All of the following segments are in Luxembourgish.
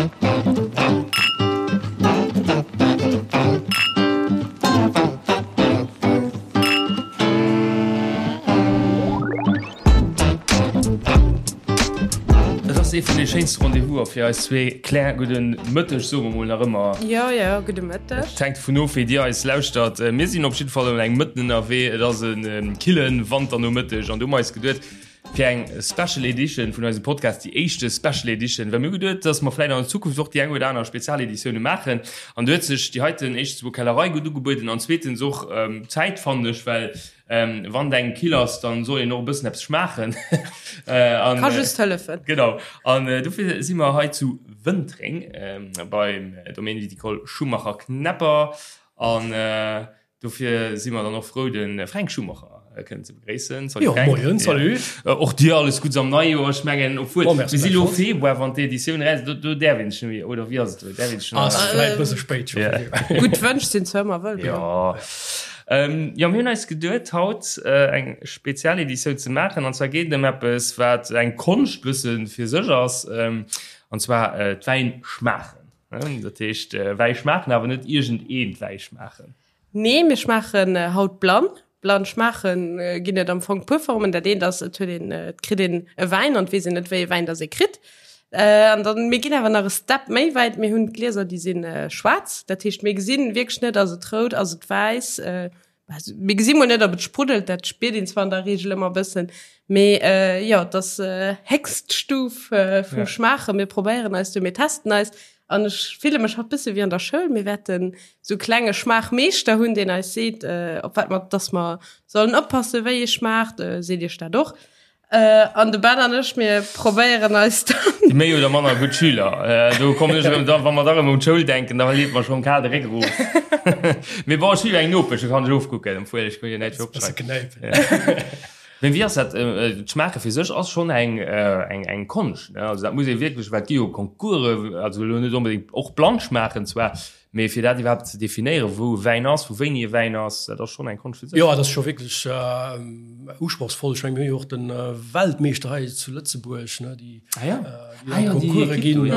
Et ass ee vun de schéinste Rendez-vouser fir eis zwee. Claire, gudde Mëtteg, soe mer mol nach ëmmer. Jo, jo, gudde Mëtteg. Et hänkt dovun of, wéi Dir eis lauschtert. Mir sinn op jidde Fall ëm eng Mëtten ënnerwee. Et ass e kille Wanternomëtteg an du hu mer eis geduet, fir eng Special Edition vun eisem Podcast, déi éischte Special Edition, well mir hu geduet, dass mer vläicht an der Zukunft och déi eng oder aner Spezialeditioune maachen. An do huet sech déi heiten éischtens emol Kellerei gutt ugebueden an zweetens och d'Zäit, fannen ech, well wann et engem kill ass, dann soll een och e bëssen eppes schmaachen. Ka just hëllefen. Genau. An dofir si mer hei zu Wëntreng beim Domaine Viticole Schumacher-Knepper an Dofir si mer dann och frou, de Fränk Schumacher kënnen ze begréissen. Salut Fränk. Jo, moien, salut. Och dir alles Guddes am neie Joer. Ech mengen, obwuel, mir si lo Februar, wann d'Editioun eraus, do, do däerf een sech net méi, oder wéi ass et elo? Däerf een sech nach? Ass vläicht e bësse spéit scho. Gutt Wënsch sinn zwar ëmmer wëllkomm. Jo. Jo, mir hunn eis geduet, haut eng Spezialeditioun ze maachen. An zwar geet et ëm eppes, wat eng Konscht bësse fir sech ass, an zwar d'Wäinschmaachen. Dat heescht Wäi schmaachen, awer net iergend eent Wäi schmaachen. Nee, mir schmaachen haut blann. Blann schmaachen ginn et am Fong puer Formen. Dat eent ass, et huet een, et kritt een e Wäin an et weess een net, wéi e Wäin dass ee kritt. An dann, mir ginn awer nach e Step méi wäit, mir hunn d'Glieser, déi si schwaarz. Dat heescht, mir gesinn wierklech net, ass et rout, ass et wäiss. Also, mir gesi mol net, ob et spruddelt, dat spiert een zwar an der Regel ëmmer e bëssen, mee äh, jo, et ass äh, héchst Stuf äh, vum ja. Schmaachen. Mir probéieren eis do, mir testen eis. An ech fille mech haut bësse wéi an der Schoul. Mir wäerten sou klenge Schmaachmeeschter hunn, deen eis seet, äh, op wat mer, dass mer sollen oppassen, wéi ee schmaacht. Äh, seet Iech dat och. Äh, an de Ben an ech, mir probéieren eis dann. Déi méi oder manner gutt Schüler. Äh, do kommen ech erëm, da, wa mer da erëm un d'Schoul denken, da leet mer schonn kal de Réck erof. Mee bon, ech hu jo eng Nopesch, do kann ech ofkucken, obwuel ech kann jo näischt opschreiwen. Mee wéi ass dat, äh, d'Schmaache fir sech ass schonn eng, äh, eng, eng Konscht, ne? Also dat muss ee wierklech, well et gi jo Concoursen, also elo net onbedéngt och blann schmaachen zwar, Mee fir dat iwwerhaapt ze definéieren, wou e Wäin ass, vu wéini e Wäin ass, dat ass schonn eng Konscht fir sech. Jo, dat ass scho wierklech usprochsvoll. Ech mengen, mir hu jo och de Weltmeeschter hei zu Lëtzebuerg, ne, déi an d'Concourse ginn.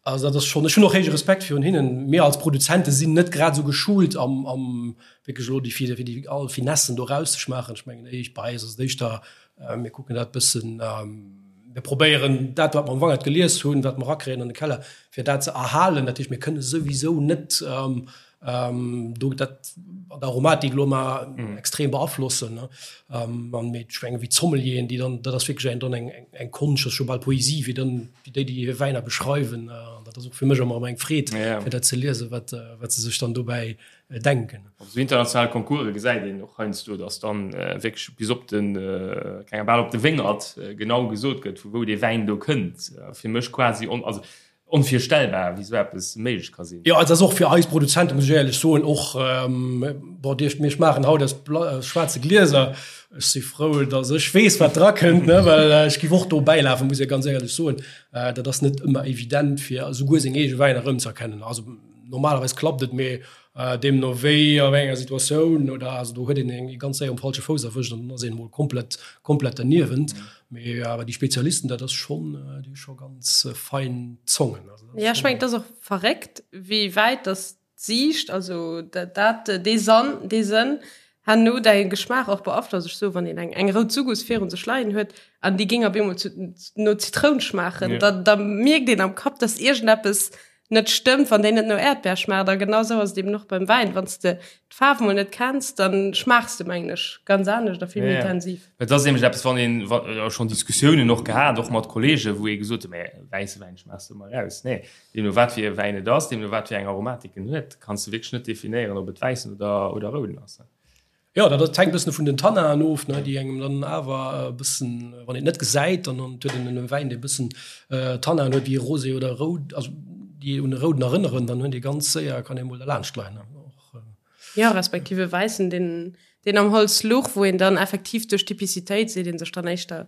Also dat ass schonn, ech hunn och héije Respekt virun hinnen. Mir als Produzente sinn net grad esou geschult am, am wierklech elo déi, fir déi all Finessen do erauszeschmaachen. Ech mengen, bei eis ass et éischter, Mir kucken dat bëssen, mir probéieren dat, wat mer am Wangert gelies hunn, wat mer erakréien an de Keller, fir dat ze erhalen. Dat heescht, mir kënne souwisou net do dat an der Aromatik elo mar extrem beaflossen. An mee ech mengen, wéi d'Sommelieren, déi dann, dat ass wierklech eng dann eng eng Konscht, dat ass scho bal Poesie, wéi dann wéi déi déi hir Wäiner beschreiwen. An dat ass och fir mech ëmmer erëm eng Freed, fir dat ze liesen, wat wat se sech dann dobäi denken. Op esou internationale Concourse gesäit een och heiansdo, datt dann wierklech bis op den, keng bal op de Wéngert genau gesot gëtt, vu wou dee Wäin do kënnt. Fir mech quasi on, also onvirstellbar, wéi esou eppes méiglech ka sinn. Jo, et ass och fir eis Produzenten, muss ech éierlech soen, och, bon, Dir, mir schmaachen haut aus schwaarze Glieser. Ech si frou, datt ech weess, wat drakënnt, ne, well ech géif och do bäilafen, muss ech ganz éierlech soen. Dat ass net ëmmer evident, fir esouguer seng eege Wäiner erëmzëerkennen. Also Normalerweis klappt et, mee deemno wéi a wéi enger Situatioun oder also do huet een eng ganz séier um falsche Fouss erwëscht an dann ass een emol komplett komplett derniewent. Mee awer déi Spezialisten, dat ass schonn, déi hu scho ganz fein Zongen. Also dat ass Jo, ech mengen, et ass och verréckt, wéi wäit dass d'Siicht, also dat dat dee Sann, dee Sënn herno däi Geschmaach och beaflosst. Ech soe wann een eng eng rout Sugus virun sech leien huet an déi géing op eemol zu no Zitroun schmaachen, da da mierkt een am Kapp, dass iergendeppes net stëmmt, wann déi net no Äerdbär schmaacht. A genau sou ass et eben och beim Wäin, wann s de d'Faarf mol net kenns, dann schmaachs de, mengen ech, ganz anescht a vill méi intensiv. Et ass nämlech eppes, wann een, wa schonn Diskussiounen och gehat, och mat Kolleegen, wou ee gesot huet, mä wäisse Wäin schmaachs de ëmmer eraus. Nee, deemno wat fir e Wäin et ass, deemno wat fir eng Aromatik en huet, kanns de wierklech net definéieren, ob et wäissen oder, oder rouden ass. Jo, dat hänkt e bëssen vun den Tannaen of, ne, déi engem dann awer e bëssen, wann een et net gesäit, dann huet een e Wäin, dee e bëssen Tannaen huet, wéi e Rosé oder e Roud, also déi un e Rouden erënneren, dann hunn déi ganz séier, kann ee mol derlaanscht leien. Och. Jo, respektiv e Wäissen, deen, deen am Holz luch, wou een dann effektiv duerch d'Typicitéit seet ee sech dann éischter.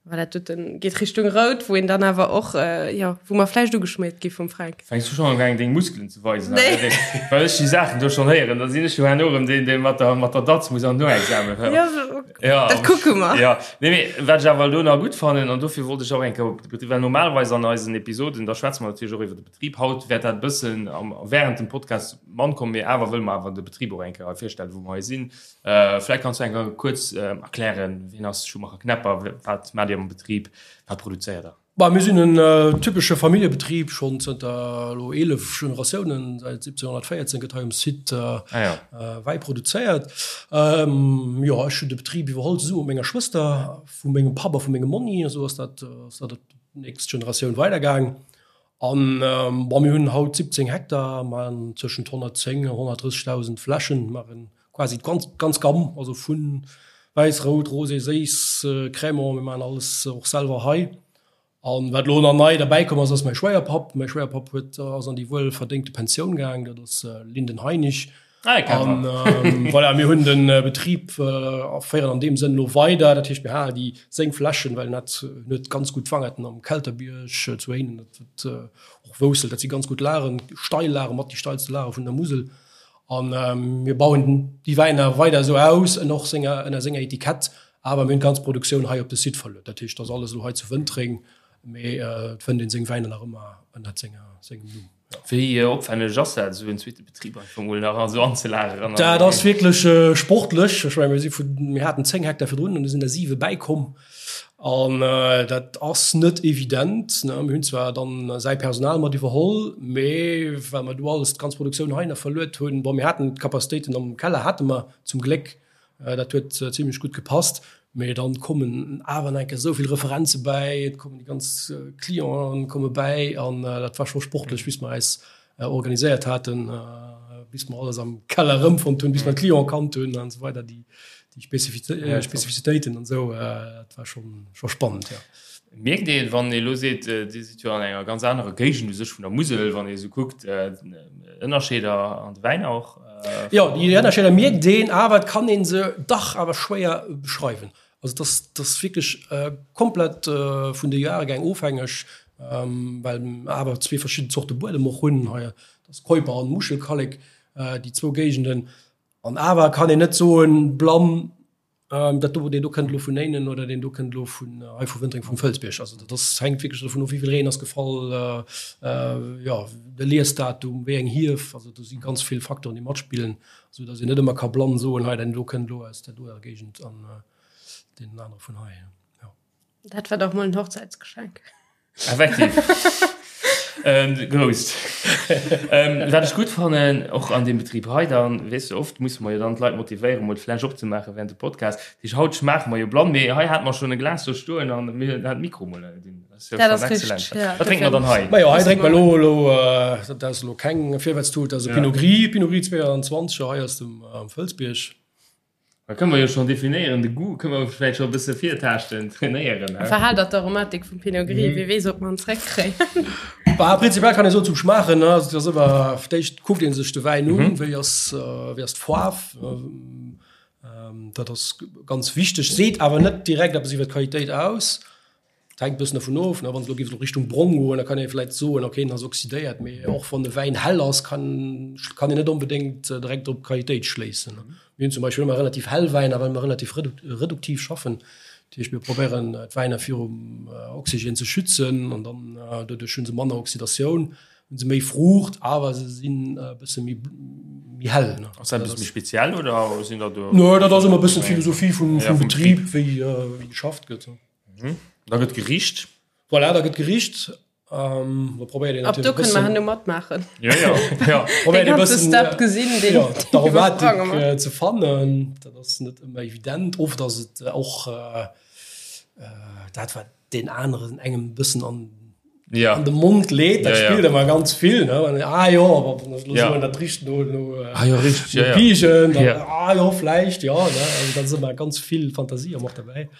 Voilà, dat doten geet Richtung rout, wou een dann awer och, jo, wou mer vläicht ugeschmiert gi vum Fränk. Fänks du schonn un deng Muskelen ze weisen? Nee. Well ech déi Saachen do schonn héieren, da sinn ech jo herno erëm deen, dee mat der, mat der Datz muss an Noexamen. Jo, ja, dat kucke mer. Ja, nee, mee wat ech awer elo nach gutt fannen, an dofir wollt ech och eng Kéier op de Betrib, well normalerweis an eisen Episoden, da schwätze mer natierlech och iwwer de Betrib. Haut wäert dat e bëssen am, während dem Podcast mann kommen, mee awer wëlle mer awer de Betrib och eng Kéier hei virstellen, wou mer hei sinn. Vläicht kanns du eng Kéier kuerz erklären, wien ass Schumacher Knepper, wat maacht Dir am Betrib, wat produzéiert Der? Bah, mir sinn en typesche Familljebetrib, schonn zënter elo 11 Generatiounen, säit 1714 gëtt hei um Site Wäi produzéiert. Jo, ech hunn de Betrib iwwerholl zesumme mat menger Schwëster, vu mengem Papp a vu mengem Monni, esou ass dat ass dat op d'nächst Generatioun weidergaang. An bon, mir hunn haut 17 Hektar, maachen tëschent 110 a 130.000 Fläschen, maachen quasi d'ganz ganz Gamm, also vu wäiss, rout, rosé, séiss, Crémant, mir maachen alles och selwer hei. An wat elo nach nei derbäi komm ass, ass mäi Schwéierpapp. Mäi Schwéierpapp huet, ass an déi wuelverdéngte Pensioun gaang, dat ass Linden Heinig. Ah, an ähm, voilà, mir hunn den äh, Betrieb äh, féieren an dem Sënn lo weider. Dat heescht mir halen déi seng Flächen, well net net ganz gut Wangerten am Kelterbierg äh, zu Éinen, dat huet äh, och Woussel, dat si ganz gut Lagen, steil Lage mat déi steilste Lage vun der Musel. An ähm, mir bauen déi Wäiner weider esou aus en och senger ënner senger Etikett, awer mir hunn d'ganz Produktioun hei op de Site verluet. Dat heescht, ass alles elo hei zu Wëntreng, mee äh, et fënnt een seng Wäiner nach ëmmer ënner senger sengem Numm. Wéi opwänneg ass dat, esou en zweete Betrib einfach mol nach esou anzelageren? Dat ass wierklech sportlech. Ech mengen, mir si vun, mir haten 10 Hektar virdrun an du sinn der siwe bäikomm. An dat ass net evident. Mir hunn zwar dann säi Personal mat iwwerholl, mee well mer do alles, d'ganz Produktioun heihinner verluet hunn, bon, mir haten d'Capacitéiten am Keller hate mer zum Gléck, Dat huet zimlech gutt gepasst, mee dann kommen awer nach eng Kéier esou vill Referenze bäi, et kommen déi ganz Clienten komme bäi an dat war scho sportlech, bis mer eis organiséiert haten, bis mer alles am Keller erëmfonnt hunn, bis mer d'Clienten kannt hunn an esou weider, déi Spezifizitéiten an esou, dat war schonn scho spannend, jo. Mierkt een, wann ee elo seet, Dir sidd jo an enger ganz anerer Géigend u sech vun der Musel, wann ee esou kuckt, Ënnerscheeder an de Wäiner och? Jo, déi Ënnerscheeder mierkt een, awer et kann ee se dach awer schwéier beschreiwen. Also et ass, et ass wierklech komplett vun de Jahrgäng ofhängeg, well mer awer zwee verschidden Zorte Buedem och hunn hei, dat ass Keuper an Muschelkallek, déi zwou Géigenden. An awer kann een net soen, blann, Dat do, deen do kënnt elo vun Éinen oder deen do kënnt elo vun hei vu Wëntreng vum Fëlsbierg. Also dat ass, hänkt wierklech dovun of, wéi vill Reen ass gefall, jo, de Liesdatum, wéi eng Hief. Also do si ganz vill Facteuren, déi matspillen, esou datt een net ëmmer ka blann soen, hei deen do kënnt elo aus där doer Géigend an deen anere vun hei. Jo. Dat war dach mol en Hochzäitsgeschenk. Effektiv. ähm, grousst. ähm, wat ech gutt fannen, och an dem Betrib hei dann, weess du, oft musse mer jo dann d'Leit motivéieren, mol d'Fläsch opzemaachen während dem Podcast. Dat heescht, haut schmaache mer jo blann, mee hei hate mer schonn e Glas do stoen an mir hunn dat Mikro mol dinn. Dat ass jo schonn exzellent. Ja, wat drénke mer dann hei? Majo, hei drénke mer elo, elo, dat ass elo keng Virwärtstut, dat ass e Pinot Gris, Pinot Gris 22, hei aus dem Fëlsbierg. Da kënne mer jo schonn definéieren, de Goût kënne mer vläicht scho e bësse virtaaschten, trainéieren. Verhal dat d'Aromatik vum Pinot Gris, wie weess, ob mer en zréckkréien. Bah, prinzipiell kann ee soen, zum Schmaachen, ne, also et ass ëmmer, fir d'éischt kuckt ee sech de Wäin un, wéi ass, wéi ass d'Faarf, dat ass ganz wichteg, seet awer net direkt eppes iwwer d'Qualitéit aus. Et hänkt e bëssen dovun of, ne, wann se elo géif elo Richtung brong goen, da kann ee vläicht soen, okay, en ass oxydéiert, mee och wann e Wäin hell ass, kann kann een net onbedéngt direkt op d'Qualitéit schléissen. Mir hunn zum Beispill ëmmer relativ hell Wäiner, well mer relativ reduktiv schaffen. Dat heescht, mir probéieren d'Wäiner virum Oxygène ze schützen an dann doduerch hu se manner Oxydatioun, hu se méi Fruucht, awer se sinn e bësse méi méi hell. Ass dat e bësse méi speziell oder sinn der do? Nö, dat ass ëmmer e bëssen d'Philosophie vum Betrib, wéi wéi geschafft gëtt. Mhm. Da gëtt gericht. Voilà, da gëtt gericht. Ähm, da probéiert een Ab do kënne mer herno matmaachen. Ja, ja. ja. Probéiert een bëssen Step gesinn, den ja, d'Aromatik äh, ze fannen. Dat ass net ëmmer evident. Oft ass et äh, och äh, äh, dat wat den aneren engem bëssen an ja. an de Mond leet, dat ja, spillt ja. ëmmer ganz vill ne? An, ah jo, ja. soen, dat richt no, no, äh, ah, jo, richtig, no ja, Pigen, dann, ja. ah jo, vläicht, ja, ne? Also, da ass ëmmer ganz vill Fantasie och dabei.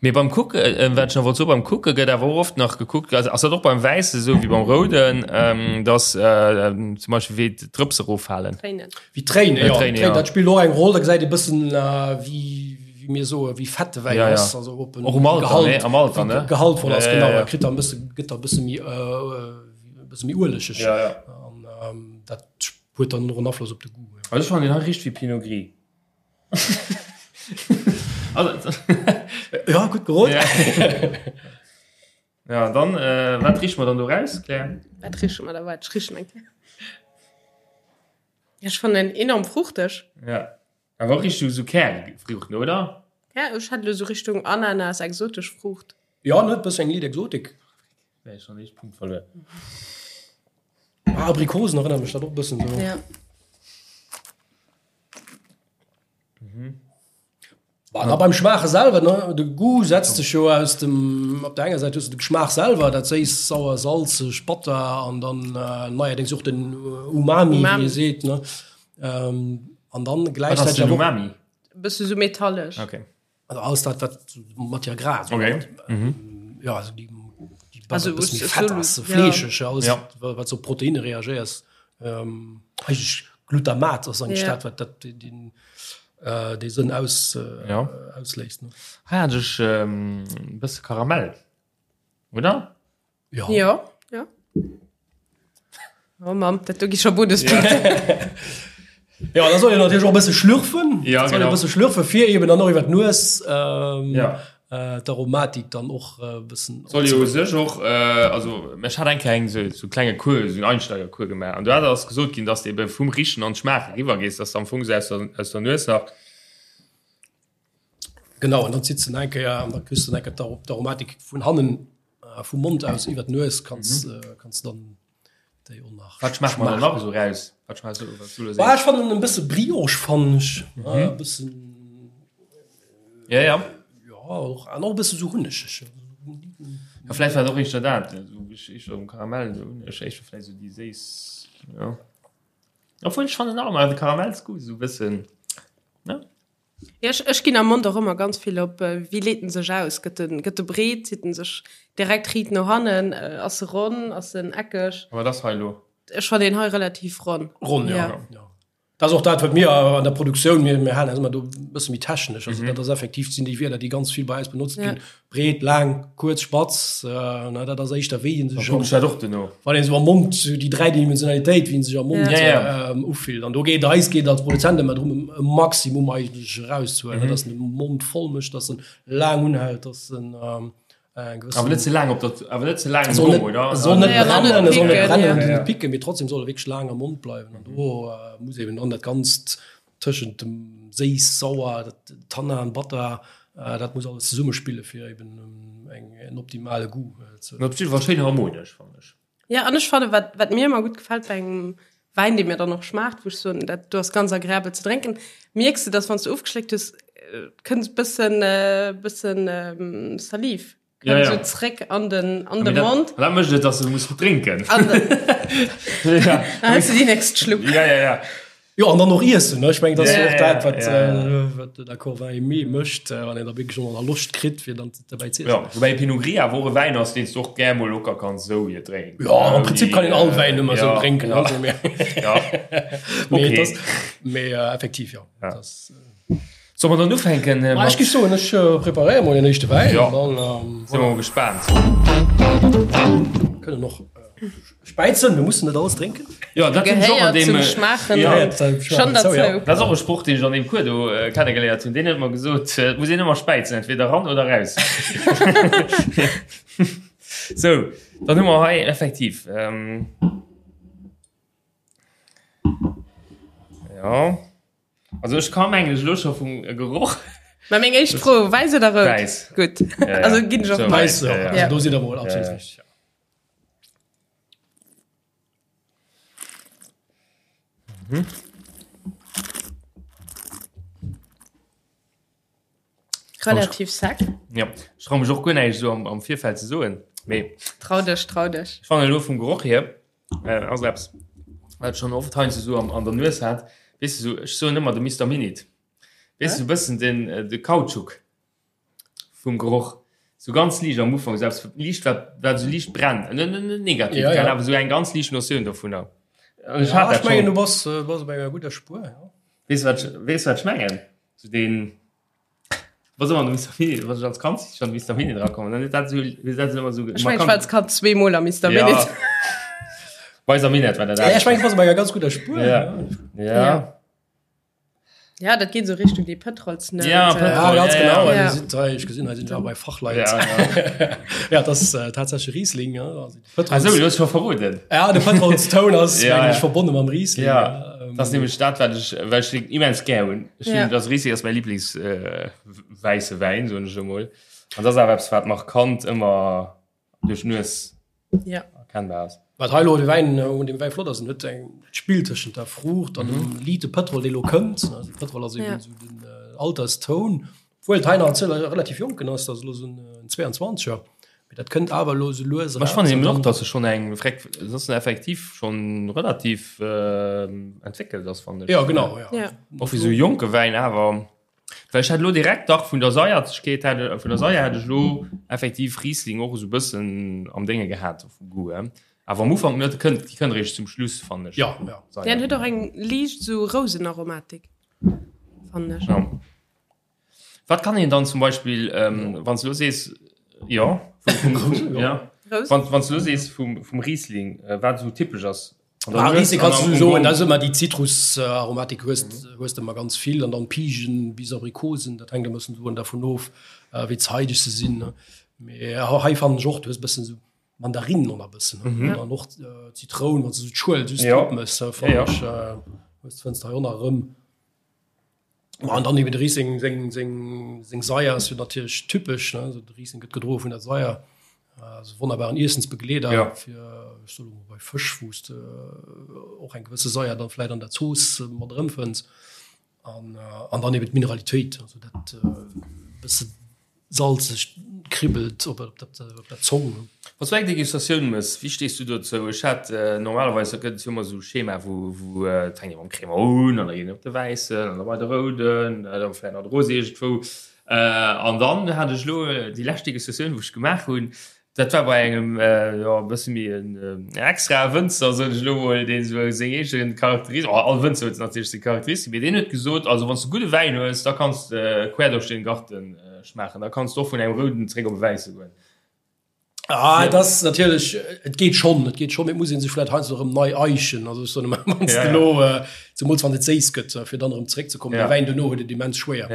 Mee beim Kucke, äh, wat ech nach wollt soen, beim Kucke gëtt awer och oft nach gekuckt, also ass dat och beim Wäisse sou wéi beim Rouden, ähm, dass äh, zum Beispill wéi d'Drëpse eroffalen. Tréinen. Wéi Tréinen, ja. Tréinen, ja. Dat spillt och eng Roll, da gesäit ee bëssen, äh, wéi. wéi mir soen, wéi fett de Wäin ass, also ob en Och um Alter, ne? Am Alter, ne? gehaltvoll ass, genau, e kritt da e bësse, gëtt da e bësse méi, e bësse méi uelegeg. Ja, ja. An dat huet dann och en Afloss op de Goût. Also ech fannen deen hei richt wéi Pinot Gris. Also, Ja, gutt gerot. Ja. Ja, dann, äh, wat riche mer dann do raus, Claire? Wat riche mer da? Waart, ech richen eng Kéier. Ja, ech fannen en enorm fruchteg. Ja. Awer och Richtung sou Kärfruuchten, oder? Ja, ech hätt elo sou Richtung Ananas, exotesch Fruucht. Ja, ne, bëssen eng liit Exotik. Wär schon éischt Punkt verluer. Ah, Abrikosen erënnert mech dat och bëssen sou. Ja. Mhm. Bah, da beim Schmaache selwer, ne, de Goût setzt sech jo aus dem, op der enger Säit hues du de Geschmaach selwer, dat séiss, sauer, salzeg, batter an dann äh, neierdéngs och den Umami, Umami. wéi ee seet, ne. Ähm, an dann Wat ass gläichzäiteg den awer och Umami? Bësse sou metallesch. Okay. Also alles dat wat Matière grasse Okay. mhm. ja, also die, die Also, also, es- es fett soll- ass, ja. fleescheg, alles Ja. wat, wat so Proteine reagéiers. Ähm, eigentlich Glutamat ass eigentlich Ja. dat wat dat den, den, äh, dee Sënn aus, äh, Ja. ausléist. Ne? Hei hat ech ähm, e bësse Karamell. Oder? Ja. Ja, ja. Oh Mamm, dat do gi scho Bonuspunkten. Ja, da soll een natierlech och e bësse schlürfen. Ja, soll genau. e bësse schlürfen, fir eben dann och iwwer d'Nues ähm, Ja. äh, d'Aromatik dann och e bëssen. Soll jo u sech och, äh, also ech hat eng Kéier eng sou sou klenge Cours, sou en Einsteigercours gemaach an do hat ass gesot ginn, dass de ebe vum Richen an d'Schmaache riwwer gees, dass de am Fong sou aus der aus der Nues nach. Genau, an dann zitt se eng Kéier an da kriss du eng Kéier d'Aromatik vun hannen äh, vum Mond aus iwwer d'Nues kanns, mhm. äh, kanns dann déi och nach. Wat schmaacht man dann nach esou raus? Wat schmaacht du, wat du lo Bah, ech fannen en bësse Brioche fannen ech. Mhm. Äh, bëssen Ja, ja. Ja, och, an och e bësse sou hunnegeg. Ja, vläicht war et och éischter dat, esou ech éischter um Karamell, esou hunneg, éischter vläicht esou déi séiss, ja. Obwuel ech fannen nach ëmmer de Karamellsgoût esou e bëssen, ne? Ja, ech, ech ginn am Mond och ëmmer ganz vill op, äh, wéi leet en sech aus? Gëtt en, gëtt e breet? Zitt en sech direkt riit no hannen? Äh, ass e ronn? Ass en eckeg? A wat ass hei elo? Ech fannen deen hei relativ ronn. Ronn, ja. Ja. ja. Dat ass och dat, wat mir an der Produktioun, mir, mir halen eis ëmmer do e bësse méi technesch. Also dat ass effektiv, sinn déi Wierder, déi ganz vill bei eis benotzt Ja. ginn. Breet, laang, kuerz, spatz, äh, na, dat ass éischter wéi en sech Kuck ech dat och duerno. wann een sou am Mond sou déi Dräidimensionalitéit, wéi en sech am Mond Ja. Ja, ähm, ufillt. An do geet eis geet als Produzent ëmmer drëm, e Maximum eigentlech erauszehuelen, mm -hmm. dass en de Mond voll mécht, dass en laang unhält, dass en ähm, eng gewëssen. Awer net ze laang op der, awer net ze laang im soll Gong, net, oder? soll net Ja, brennen, net soll net picken, brennen ja. und net picken, mee trotzdem soll e wierklech laang am Mond bleiwen. An do äh, muss eben dann dat Ganzt tëschent dem séiss, sauer, dat Tannin, batter, äh, dat muss alles zesummespille fir eben ähm, eng, en optimale Goût äh, ze. Op jidde Fall schéin harmonesch, fannen ech. Ja, an ech fanne wat, wat mir ëmmer gutt gefält bei engem Wäin, dee mir dann och schmaacht, wou ech soen, dat do ass ganz agreabel ze drénken, mierks de, dass wann s du ofgeschléckt hues, äh, kënnt bëssen, äh, bëssen ähm, Saliv. Ja, ja. So zréck an den, an de Mond. Dat mécht et, dass du muss drénken. An ja. Dann hues du déi nächst Schlupp. Ja, ja, ja. Jo, an dann och iessen, ne? Ech mengen, dat ass Ja, jo och dat, wat, ja, ja. äh, wat den Accord Vin Aimé mécht, äh, wann een da wierklech och nach Loscht kritt, fir dann derbäi ze iessen. Ja, woubäi Pinot Gris awer och e Wäin ass, deen s du och gär mol locker kanns esou hier drénken. Ja, am Prinzip kann een all Wäin ëmmer esou Ja, drénken, ja. also, mee, Ja. mee, Okay. et ass, mee äh, effektiv, jo. Ja. Dat ass, äh, Soll mer dann ufänken? Ma ech géif soen, ech preparéiere mol den éischte Wäin. Jo, an dann si mer mol gespaant. Kënnen och späizen, mir mussen net alles drénken. Jo, dat hunn ech och an Gehéiert deem, zum Schmaachen jo, schonn derzou. Dat ass och e Sproch, deen ech an deem Cours do kennegeléiert hunn. Deen huet mer gesot, et muss een ëmmer späizen, entweder eran oder raus. Sou, dann hu mer hei effektiv, jo. Also ech ka mengen ech elo scho vum Geroch. Mä meng éischt Fro, wäiss oder rout? Wäiss. Gutt. Ja, ja. Also ginn ech och So, mat. Wäiss, ja, ja. also do sidd der mol absolut Ja, ja. richteg. Mhm. Relativ sec. Ja, ech trau mech och guer näischt esou am, am Virfeld ze soen, mee Trau dech, trau dech. ech fannen elo vum Geroch hier, äh, ass eppes, wat ech schonn oft heiansdo esou am, an der Nues hat, weess de, esou, ech soen ëmmer de Mister Minit, weess de, esou e bëssen den, de Kautschuk vum Geroch, esou ganz liicht am Ufank, esou eppes liicht, wat, wat esou liicht brennt, net, net, net negativ, Ja, ja. gell, awer esou eng ganz liicht Notioun dovunner. An ech Ja, hat ech dat mengen, schonn. du bass, bass op enger gudder Spuer, ja. Weess de, wat ech, weess de, wat ech mengen? Esou deen. Was ëmmer Mister Mini, was ech als Kand schon Mister Mini dra kommen, dann dat so, dat ëmmer so. Ech mein, ich war als Kand zweemol am Mister Mini. Ja. Weiser Minett war dat. Ja, ech mein, ich war bei enger ganz guter Spur. Ja. Ja. Ja. Ja, dat geet so Richtung déi Pëtrolsnout. Ja, Pëtrol, ja, ganz ja, genau. Ja. Sind, ich gesinn, hei sinn ja bei Fachleit. Ja, ja. ja das ist äh, tatsächlich Riesling. Ja. Also, Ach so, du hast schon verroden. Ja, de Pëtrolstoun ass ja, ja. ja. verbonnen mam Riesling. Ja. Ähm, das ist nämlich dat, wat ich, well ich den immens gär hunn. Ich ja. das Riesling ass mein Lieblings äh, weiße Wein, so ech emol. An das awer eppes, wat markant ëmmer duerch d'Nues ja. erkennbar ass. Wat hei lo de Wäin un dem Wäi flott ass, en huet eng Spill tëschent der Fruucht an dem mhm. liite Pëtrol, dee lo kënnt. Also Pëtrol ass eben ja. so den äh, Alterstoun. Obwohl et hei nach en relativ jonken ass, dat ass lo so en 22er. Mee dat kënnt awer lo sou lues Ech fannen eben och, dass e schonn eng Freck, dass en effektiv schonn relativ äh, entwéckelt ass, fannen ech. Ja, genau, ja. Ja. Och fir sou jonke Wäin awer. Well ech hat lo direkt dach vun der Saierzegkeet hat, vun der Saier hat ech lo effektiv Riesling och esou bëssen am Dénge gehat vum Goût hier. Awer am Ufank net, kënnt, déi kënnt eréischt zum Schluss, fannen ech. Ja, ja. Saier. Deen huet och eng liicht sou Rousenaromatik, fannen ech. Ja. Wat kann een dann zum Beispill, ähm, wann s du lo sees, jo, vum, vum, vum, ja. Rous. Wann, wann s du lo sees vum, vum Riesling, äh, wat esou typesch ass, Ah, Riesling kannst du soen, da ass ëmmer déi Zitrusaromatik hues hues de ëmmer ganz vill an dann Pigen bis Abrikosen, dat hänkt e bëssen soen dervun of, wéi zeideg se sinn. Mee hei fannen ech och, du hues e bëssen esou Mandarinen och nach e bëssen an dann och Zitroun, wann s de esou d'Schuel just drop mëss, fannen ech, hues fënns de hei och nach erëm. An dann eben de Riesling seng, seng, seng Saier ass jo natierlech typesch, ne? Also de Riesling gëtt gedroe vun der Saier. Also wonnerbaren Iessensbegleeder ja. fir ech soe mol bei Fësch, wou s de och eng gewësse Saier dann vläit an der Zooss mat erëmfënns. An, an dann eben d'Mineralitéit, also dat bësse Salzeg kribbelt op der Zong. Wann s du eng Degustatioun mëss, wéi stees du dozou? Ech hat normalerweis, da gëtt et jo ëmmer esou Schema, wou wou et fänkt ee mam Crémant un an da geet een op de Wäissen an da bei de Rouden, da vläicht nach de Rosé iergendwou. An dann hat ech elo déi lescht Degustatioun, wou ech gemaach hunn, Dat war bei engem jo e bësse méi en extrae Wënzer, soen ech elo mol, deen esou seng eege Charakteris-, oh, all Wënzer huet natierlech seng Charakteristik, mee deen huet gesot, also wann s de gudde Wäin hues, da kanns de quer duerch den Garten schmaachen, da kanns de och vun engem rouden zréck op e wäisse goen. Ah, et ass natierlech, et geet schonn, et geet schonn, mee et muss ee sech vläicht heiansdo erëm nei eichen. Also ech soen ëmmer, wann s de elo, zemools wann et séiss gëtt, fir dann erëm zeréckzekommen, de Wäin dono huet et immens schwéier.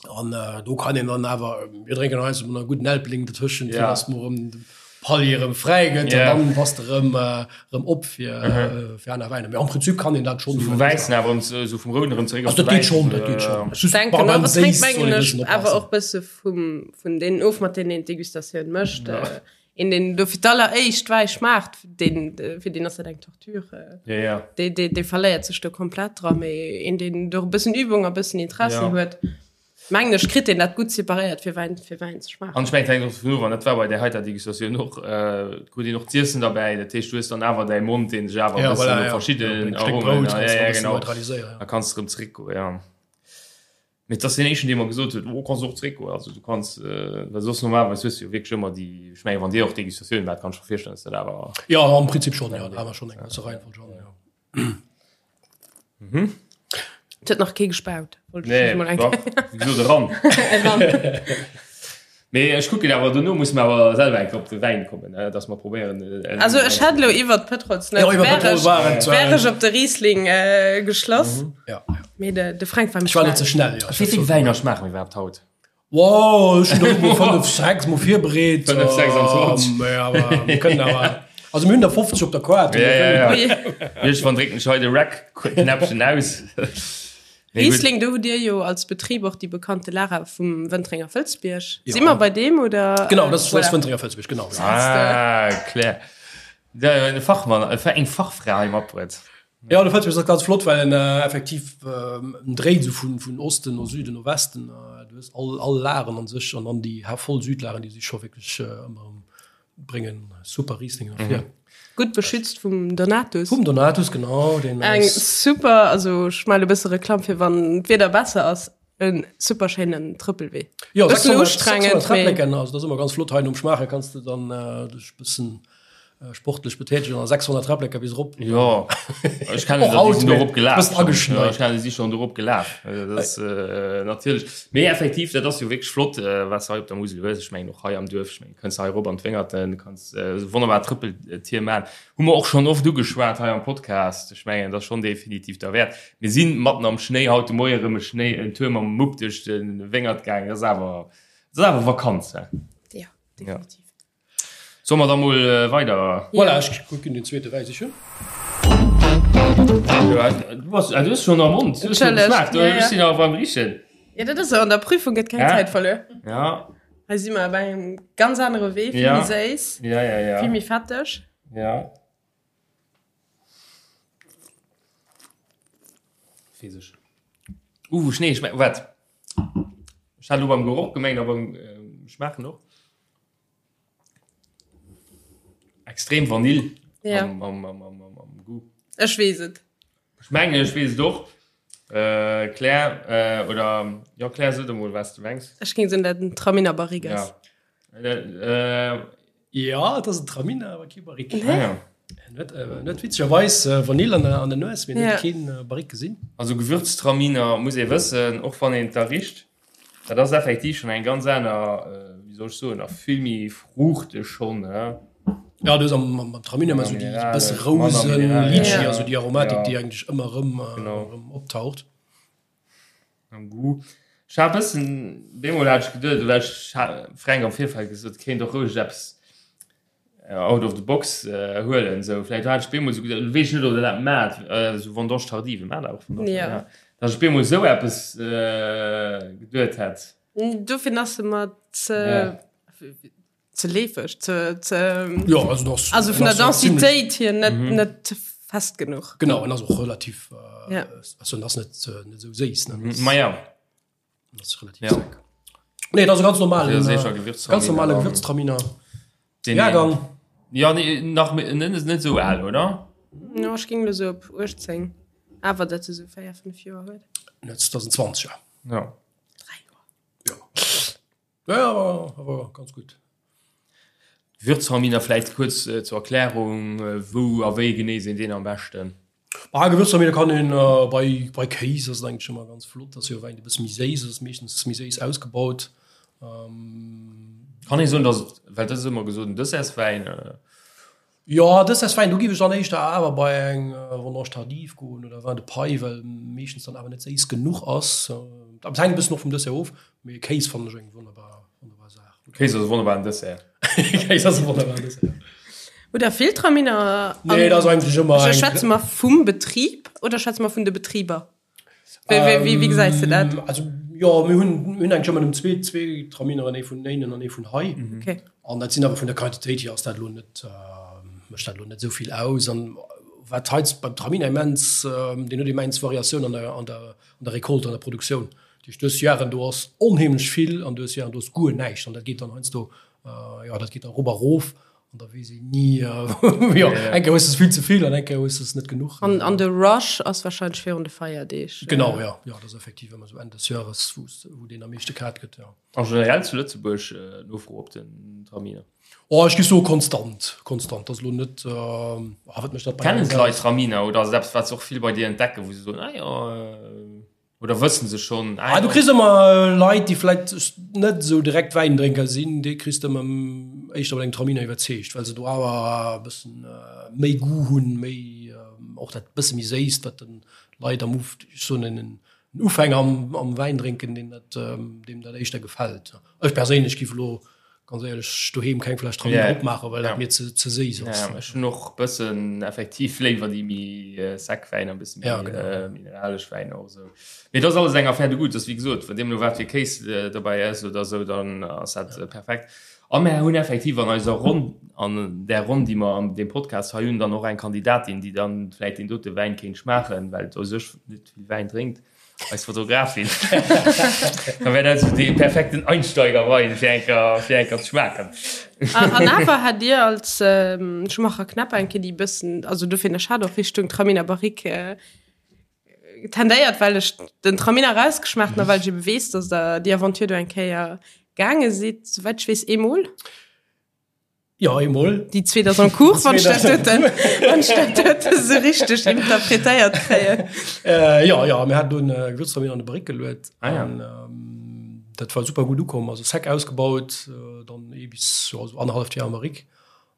An äh, do kann een dann awer mir drénken eis mat einer guten Elbling dazwischen ja. dass mer erëm de Palier erëm fräi gëtt ja. dann bass de erëm äh, erëm op fir mhm. äh, fir aner Wäiner. Mee am Prinzip kann een dat schon vum Wäissen awer erëm so vum Rouden erëm zeréck op dat geet schon, dat geet schon. Ech denken och, et hänkt mengen ech awer och bësse vum vun deenen of mat deenen een d'Degustatioun mécht. Ja. Äh, een deen do fir d'alleréischt Wäi schmaacht, deen fir deen ass dat eng Torture. Ja, ja. Dee, dee, dee verléiert sech do komplett dra, mee een deen do e bëssen Übung a bëssen Interessi Ja. huet, mengen ech, kritt deen dat gutt separéiert fir Wäin, fir Wäin ze schmaachen. An ech mengen, et hänkt och dovun of, an dat war bei där heiter Degustatioun och, äh, krut een och z'iessen derbäi, dat heescht, du hues dann awer däi Mond, deen sech awer e Ja, bëssen voilà, no ja. verschidden Ja, eng Stéck Aromen, Brout ja, kanns du ja, e bëssen genau, neutraliséieren, ja. da kanns de erëm zeréckgoen, ja. Mee et ass deen éischten, dee mer gesot huet, oh, kanns och zréckgoen. Also du kanns, well soss normalerweis hues du jo wierklech ëmmer déi, ech mengen, wann Dir och Degustatioun maacht, kann ech mer virstellen, dass dat awer. Jo, am Prinzip schonn, jo, da hu mer schonn eng gewësse Reihenfolg an, jo. Et huet nach kee gespaut, wollt ech just mol eng Kéier. Nee, wéi gesot, eran. Eran. Mee ech kucken awer, dono musse mer awer selwer eng Kéier op de Wäin kommen, dass mer probéieren. Also ech hätt elo iwwert Pëtrolsnout Jo, iwwer Pëtrol war et. wär ech op de Riesling geschloss. Ja. Mee de Fränk war méi Ech war elo ze schnell. schnell, jo. Wéi vill Wäiner schmaache mir iwwerhaapt haut? Wow, ech hunn der elo mol 5, 6 mol virbereet. 5, 26. Mee awer mir kënnen awer, also mir hunn der 50 op der Kaart. Ja, ja, ja. Iergendwann drécken ech hei de Rec-Knäppchen aus. Riesling, do hutt Dir jo als Betrib och déi bekannte Lara vum Wëntrenger Fëlzbierg. Si mer bei deem oder? Genau, dat ass Wëntrenger Fëlzbierg, genau. Ah, Claire. E Fachmann, eng Fachfra hei matbruet. Jo, de Fëlzbierg ass ganz flott, well en effektiv en dréit esou vun Osten no Süden no Westen. Du hues all Laren an sech an dann déi voll Südlaren, déi si scho wierklech ëmmer erëm Bréngen super Riesling ervir. Mhm. Gutt beschützt vum Donatus. Vum Donatus, genau. Den Eng super, also ech melle bësse Reklamm fir wann d'Wieder besser ass, en super schéinen Trëppelwee. Jo, Bëssen ustrengend, 600 Träpplecken, also dat ass ëmmer ganz flott hei nom Schmaache kanns de dann äh, dech bëssen. Sportlech betätegen an 600 Träpplecker bis erop. Jo, ech kennen der, déi sinn dorop gelaf. Bëssen ageschneit. Ech kennen, déi si schonn dorop gelaf. Dat ass natierlech. Mee effektiv, dat ass jo wierklech flott, wat s de hei op der Musel hues. Ech mengen och hei am Duerf, ech mengen, kënns hei erop an d'Wéngerten, kanns esou wonnerbar Trëppeltier maachen. Hu mer och schonn oft ugeschwat hei am Podcast. Ech mengen, dat ass schonn definitiv derwäert. Mir si matten am Schnéi haut de Moie erëm e Schnéi, en Tour mam Mupp duerch de Wéngert gaangen. Dat ass awer, dat ass awer Vakanz, he? Jo, definitiv. Solle mer da mol weider? Voilà, ech kucken den zweete Wäi sichen. Du bass, du hues schon am Mond. Du hues schon geschmaacht. Ech sinn awer beim Richen. Ja, dat ass esou, an der Prüfung gëtt keng Zäit verluer. Ja. Hei si mer bei engem ganz anere Wee, vill méi séiss, ja, ja, ja. vill méi fetteg. Ja. Weess ech. Uh, Schnéi, schmeckt, wat? Ech hat elo beim Geroch gemengt, a beim Schmaachen och. Extrem Vanille ja. am, am, am, am, am, am Goût. Ech weess et. Ech mengen, ech weess et och. Äh, Claire, äh, oder ja, Claire, so emol, was du mengs. Ech géing soen, dat en Traminer Barrique ass. Ja. Äh, äh, ja, dat ass en Traminer, awer kee Barrique. Nee. Ah, ja. Net, äh, net witzegerweis äh, Vanille an der, an der Nues, mee net keen äh, Barrique gesinn. Also Gewürztraminer muss ee wëssen, och wann een da richt, Dat ass effektiv schon eng ganz aner, wéi soll ech soen, a vill méi fruuchteg schon, ne? Ja, du hues am, am Traminer ëmmer esou déi bësse Rousen, Litchi, also déi Aromatik, déi eigentlech ëmmer erëm, erëm optaucht. Am Goût. Ech hat e bëssen, deemol hat ech geduet, oder ech hat Fränk am Virfeld gesot, kéint och roueg eppes out of the box huelen sou vläit hat ech bemol sou geduet, weess ech net ob der dat maacht, sou Vendange tardive maacht der och Vendange Ja. ja datt ech bemol sou eppes geduet hätt. Dofir ass se mer ze Ja. ze leefeg, ze ze Ja, also das, also vun der das ass ziemlich- Densitéit hier net net fest genuch. Genau, en ass och relativ, äh, Ja. also en ass net, net sou séiss, ne? Ma ja. Das ist relativ Ja. sec. Nee, das ist ganz normal. Ja, sicher, Gewürztraminer. Ganz normale Gewürztraminer. Den Jahrgang. Ja, nee, nach net net so al, oder? Ja, ech ging lo so op 18. Awer dat se so 4, 5 Joer huet. 2020, ja. Ja. 3 Joer. Ja. Ja, ja, aber, aber ganz gut. Gewürztraminer vläicht kuerz zur Erklärung, wou a wéi genee sinn deen am beschten? Ah, Gewürztraminer kann een bei, bei Kéis ass et eigentlech ëmmer ganz flott, ass jo e Wäin, dee bësse méi séiss ass, meeschtens méi séiss ausgebaut. Kann ee soen, datt et, well dat ass ëmmer gesot, en Dessertswäin? Jo, Dessertswäin, do géif ech dann éischter awer bei eng Vendange tardive goen oder Vin de paille, well meeschtens dann awer net séiss genuch ass. Awer et hänkt e bëssen och vum Dessert of, mee Kéis fannen ech eng wonnerbar, wonnerbar Saach. Kéis ass e wonnerbaren Dessert. Kéis ass e wonnerbaren Dessert. Oder Filtraminer? Nee, dat ass eigentlech ëmmer eng. Schwätze mer vum Betrib oder schwätze mer vun de Betriber? Wéi, wéi, wéi, wéi gesäis de dat? Also, jo, mir hunn, mir hunn eigentlech ëmmer nëmmen zwee, zwee Tramineren, ee vun Éinen an ee vun hei. Okay. An dat sinn awer vun der Quantitéit hier ass dat elo net, mécht dat elo net esou vill aus. An wat hei beim Traminer immens, deen huet immens Variatioun an der, an der, an der Récolte, an der Produktioun. Dat heescht, du hues Jaren, do ass onheemlech vill an du hues Jaren, do ass guer näischt. An dat geet dann heiansdo, jo, dat geet dann erop a rof. An da weess een ni, jo, eng Kéier hues de vill ze vill an eng Kéier hues de es net genuch. An, an de Rush ass warscheinlech virun de Feierdeeg. Genau, jo, jo, dat ass effektiv ëmmer esou Enn des Jahres, wou, wou deen am meeschte kaaft gëtt, jo. A generell zu Lëtzebuerg Nofro op den Traminer? Oh, ech géif soe konstant, konstant. Dat ass elo net, ah, wat mécht dat bei Kennen d'Leit Traminer oder ass et eppes, wat se och vill bei dir entdecken, wou se soen, ah jo, Oder wëssen se schonn? Ah, du kriss ëmmer Leit, déi vläit net esou direkt Wäindrénker sinn, déi kriss de ëmmer éischter mat engem Traminer iwwerzeegt, well se do awer e bëssen méi Goût hunn, méi och dat bësse méi Séisst, wat de Leit am Uf, ech soen en Ufänger am am Wäindrénken, deem dat deem dat éischter gefält. Ech perséinlech giff elo ganz éierlech doheem keng Fläsch Traminer yeah. opmaachen, well dat mir ze, ze séiss ass. Ja, ech hunn och bëssen effektiv léiwer déi méi äh, sec Wäiner, bëssen méi ja, genau. äh, mineralesch Wäiner och sou. Mee dat ass alles eng Affaire de goût, das wéi gesot, wann deemno wat fir Kéis äh, dobäi ass oder sou, dann ass dat ja. äh, perfekt. A mär hunn effektiv an eiser Ronn, an där Ronn, déi mer an deem Podcast hei hunn, dann och eng Kandidatin, déi dann vläit deen dote Wäin kéint schmaachen, well u sech net vill Wäin drénkt. Eis Fotografin. Da wär dat esou dee perfekten Einsteigerwein fir enker fir enker ze schmaachen. An awer hat Dir als ähm, Schumacher Knäpper eng Kéier déi bëssen, also dofir ech hat och Richtung Traminer Barrique äh, tendéiert, well ech den Traminer rausgeschmaacht hunn a well ech ebe weess, dass Der déi Aventure do eng Kéier gaange sidd, souwäit ech weess eemol. Jo, eemol. Déi zweet ass en cours, wann ech dat doten, wann ech dat dote sou richteg interpretéiert kréien. Äh, jo, jo, mir haten do en Gewürztraminer an de Barrique geluet. Ah, ja. An ähm, dat war super gutt ukomm, also sec ausgebaut, äh, dann ee bis jo, sou annerhalleft Joer am Barrique.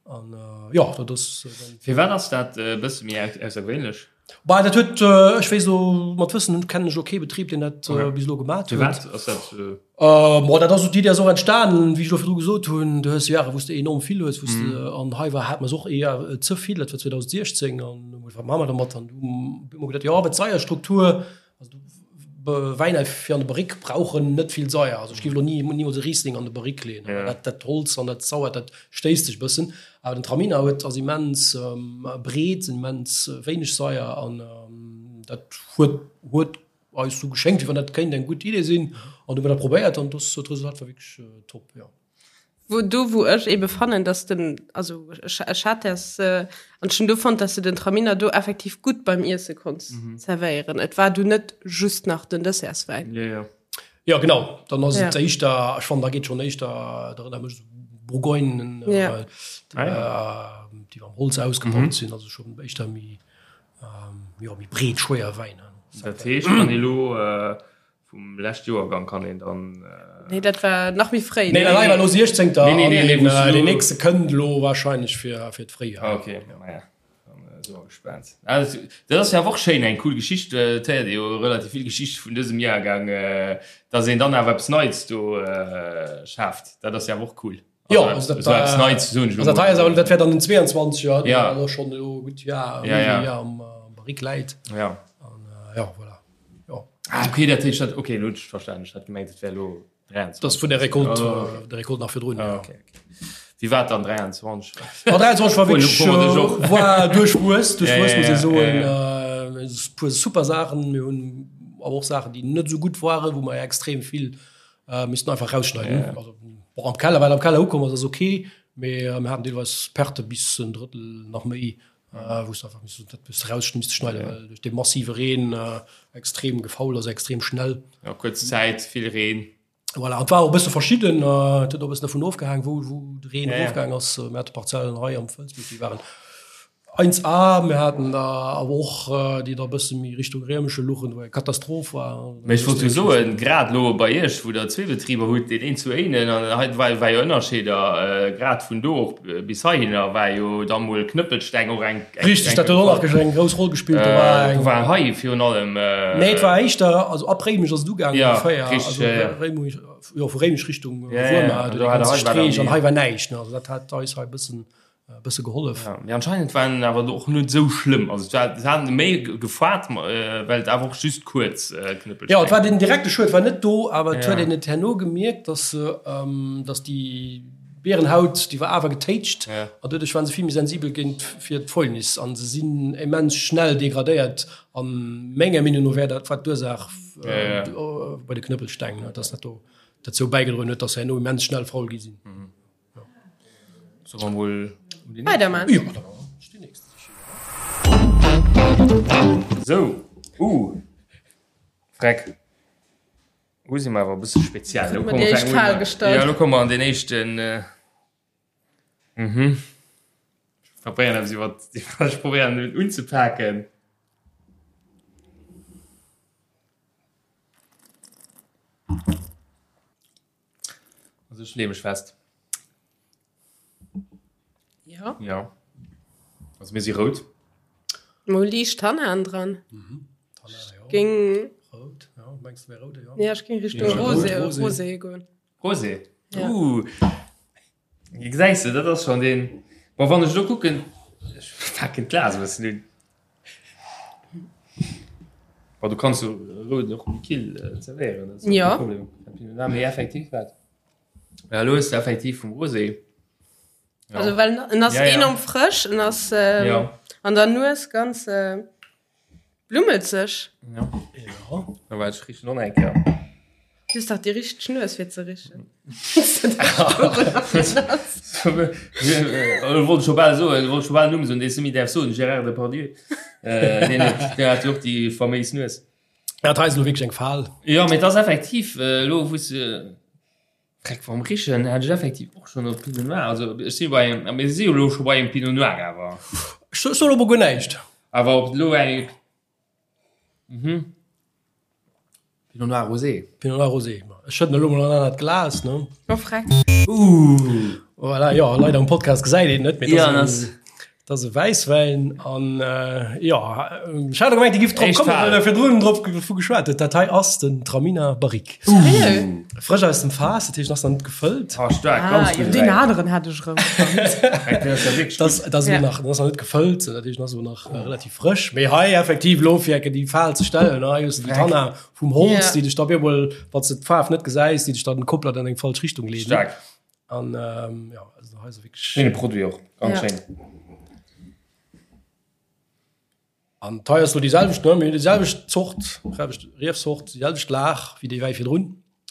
An äh, jo, dat ass äh, dann. Firwat ass dat e bësse méi aussergewéinlech? Bah, dat huet, ech weess elo, mat Wëssen kennen ech elo kee Betrib, deen dat bis elo gemat huet. Firwat ass dat? Bon, dat ass esou, d'Iddi ass och entstanen, wéi ech elo virdru gesot hunn, du hues Jahre, wou s de enorm vill hues, wou s de, an hei war, hate mer se och eher ze vill, dat war 2016, an hu mer gesot, wat maache mer dermat? An du hu mer geduet, jo, awer d'Seierstruktur, also du, Wäiner fir an de Barrique brauchen net vill Saier. Also ech géif elo ni nimools e Riesling an de Barrique leeën. Ja. Dat, dat Holz an dat Sauert, dat stéisst sech e bëssen. Awer den Traminer huet, ass immens breet, immens wéineg Saier an dat huet, huet eis sou geschéngt, wéi wann dat kéint eng gutt Idee sinn. An du hu mer dat probéiert an dass d'Resultat war wierklech top, jo. Wou do wou ech ebe fannen, dass den, also ech, ech hat das äh, an ech hunn do fonnt, dass de den Traminer do effektiv gutt beim Iesse konns mhm. zerwéieren. Et war du net just nach den Dessertswäin. Ja, ja. Ja genau, dann ass ja. et éischter, ech fannen da geet schon éischter dat erënnert mech Bourgogne ja. äh, ah, ja. äh, déi am Holz ausgebaut mhm. sinn, also schon éischter méi ähm, ja, méi breet schwéier Wäiner. Dat heescht, wann elo äh, Vum lescht Joergang kann een dann. Nee, dat war nach méi fréi. Nee, dat war elo 16. Nee, nee, nee, nee, an deen nächste kënnt elo wahrscheinlech fir, fir d'Fréijoer. Ah, okay, maja. Dann si mer gespaant. Ah, dat, dat ass jo awer och schéin, eng cool Geschicht. Et héiert ee jo relativ vill Geschichte vun dësem Jahrgang, dass een dann awer eppes Neits do schaaft. Dat ass jo awer och cool. Jo, also dat, also eppes Neits, soen ech elo mol. Also dat wär dann den 22 er, ja. deen schonn elo gutt Joer, ja, ja. Joer am Barrique läit. Ja. An, ja, voilà. Jo. Ah, okay, dat heescht dat, okay, elo hunn ech verstanen. Ech hat gemengt, et wär elo 23. Dat ass vun der Récolte, oh, okay. der Récolte nach virdrun. Ah, okay, okay. Wéi war et dann 23? Ma 23 war wierklech, war duerchwuess, duerchwuess muss ee soen. E puer super Saachen, mir hunn awer och Saachen, déi net esou gutt waren, wou mer extrem vill missten einfach rausschneiden. Also, bon, am Keller, wat am Keller ukomm ass, ass okay, mee mir haten deelweis Perte bis en Drëttel nach méi. Äh, wou s einfach missen, dat bis raus misste schneiden, ja. well duerch de massive Reen äh, extrem gefaul ass, extrem schnell. Ja, kuerz Zäit, vill Reen. Voilà, et war och e bësse verschidden, äh, et huet och e bëssen dervun ofgehaang, wou, wou de Reen Ja, ja. erofgaang ass. Mir hate Parzellen hei am Fëlsbierg, déi waren 1A, mir haten der awer och, äh, déi da e bësse méi Richtung Réimesche luchen, wou eng Katastroph war. Mee ech wollt jo soen, grad elo bei Iech, wou Der zwee Betriber hutt, deen een zu Éinen an hei war war jo Ënnerscheeder, grad vun do och bis heihinner war jo da mol Knëppelsteng och eng. Richteg, dat huet och nach eng grouss Roll gespillt. Do war eng. Do war hei virun allem. Nee, et war éischter, also ab Réimech ass et ugaangen ongeféier. Ja, richteg, ja, ja. Also Réimech, jo, vu Réimech Richtung Ja, ja, Wuermer, do do dee hat ganze hei war dann Streech an déi. hei war näischt, ne. Also dat hat eis hei e bëssen e bësse gehollef. Ja, mee anscheinend war en awer och net esou schlëmm. Also et war, se haten méi gefaart, well et awer och just kuerz Knëppelsteng. Jo, et war den direkte Schued war net do, awer et huet Ja. een et herno gemierkt, dass se, dass déi Bierenhaut, déi war awer getéitscht Ja. an doduerch waren se vill méi sensibel géint fir d'Fäulnis an se sinn immens schnell degradéiert an menger Meenung no wär dat war d'Ursaach Ja, ja. bei de Knëppelsteng, dass dat do dozou bäigedroen huet, dass se herno immens schnell faul gi sinn. Soll mer mol weiderman? Jo, da déi nächst. Sou, uh, Freck. Hu si mer awer e bësse speziell. Lo Huet mer déi éischt Fal gestallt. Ja, lo komme mer an den éischten. Äh, mhm. Ech probéieren eppes iwwer, ech probéieren en unzepaken. Also ech leeë mech fest. Ja. Ja. Also mir si rout. Mo liicht Tannan dran. Mhm. Tannan, ja. Ging. Rout, ja. Mengst du wär rout, ja? Ja, ech ging Richtung Ja, Rosé, Rot, Rosé. Rosé goen. Rosé. Ja. Uh. Gesäis de, dat ass schon deen. Bon, wann ech lo kucken, ech paken d'Glas e bëssen un. Bon, du kanns jo rouden och méi kill zerwéieren, dat ass Ja. kee Problem. Mee effektiv wat. Ja, lo hues de effektiv vum Rosé. Ja. Also well en ass Ja, ja. enorm frësch, en ass ähm, Ja. an der Nues ganz äh, blummelzeg. Ja. Ja. Da war ech richen och nach eng Kéier. Du hues dach déi richteg Nues fir ze richen. Wollt scho bal soen, wollt scho bal Numm soen, dee s de méi däerfs soen, Gérard Depardieu. Äh, deen huet, deen hat jo och déi faméis Nues. Ja, dat hei ass elo wierklech eng Fal. Jo, mee et ass effektiv, elo wou s de. Dreck vom Richen hat ech effektiv och schon op Pinot Noir. Also ech si bei engem, mir si jo lo scho bei engem Pinot Noir awer. Ech soen elo mol guer näischt. Awer ob lo eng mhm. Pinot Noir Rosé. Pinot Noir Rosé. Ech schëdden elo mol an anert Glas, ne? Oh, freck. Uh. Voilà, jo, leider am Podcast gesäit een net, mee ja, das Dat ass e Wäisswäin an jo, ech hat gemengt, Dir giff drop kommen, well der virdrun drop vu geschwat hutt. Dat hei ass den Traminer Barrique. Frësch aus dem Faass, dat heescht, en ass nach net gefëllt. Ah, staark, ganz gudde Wäin. Deen aneren hat ech erëm fonnt. Dat ass elo nach, en ass nach net gefëllt, dat heescht, en ass elo nach relativ frësch. Mee hei effektiv elo fir enke déi Fal ze stellen, hei hues de déi Tanna vum Holz, déi dech da op eemol, wann s de d'Faarf net gesäis, déi dech dann komplett an eng falsch Richtung leeden. Staark. An ähm, ja, also hei ass wierklech. Schéine Produit och, ganz Ja. schéin. An d'hei ass lo déi selwecht, ne? Mir hunn déi selwecht Zort, selwecht Riefsort, déi selwecht Lag wéi déi Wäi virdrun.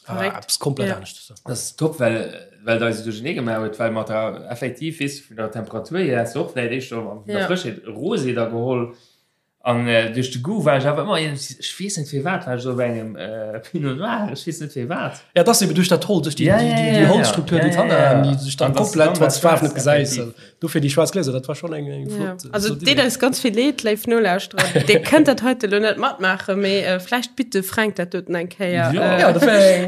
Awer Verréckt. eppes komplett Ja. anescht. Dat ass top, well well et eis esou duerchernee gemaach huet, well mat der effektiv, weess de, vun der Temperatur hier häss de och vläicht éischter vun der Ja. Frëschheet e Rosé da geholl. An duerch de Goût war ech awer ëmmer iergendwéi, ech weess net firwat, war ech esou op engem Pinot Noir, ech weess net firwat. Ja, et ass eben duerch dat Holz, duerch déi, déi, déi, déi Holzstruktur, déi Tannaen, déi sech dann komplett, wann s de d'Faarf net gesäis, dofir déi schwaarz Gläser, dat war schonn eng, eng flott. Also et deet eis ganz vill Leed, léif Nolauschterer, Dir kënnt dat heite lo net matmaachen, mee vläicht bitt de Fränk dat doten eng Kéier,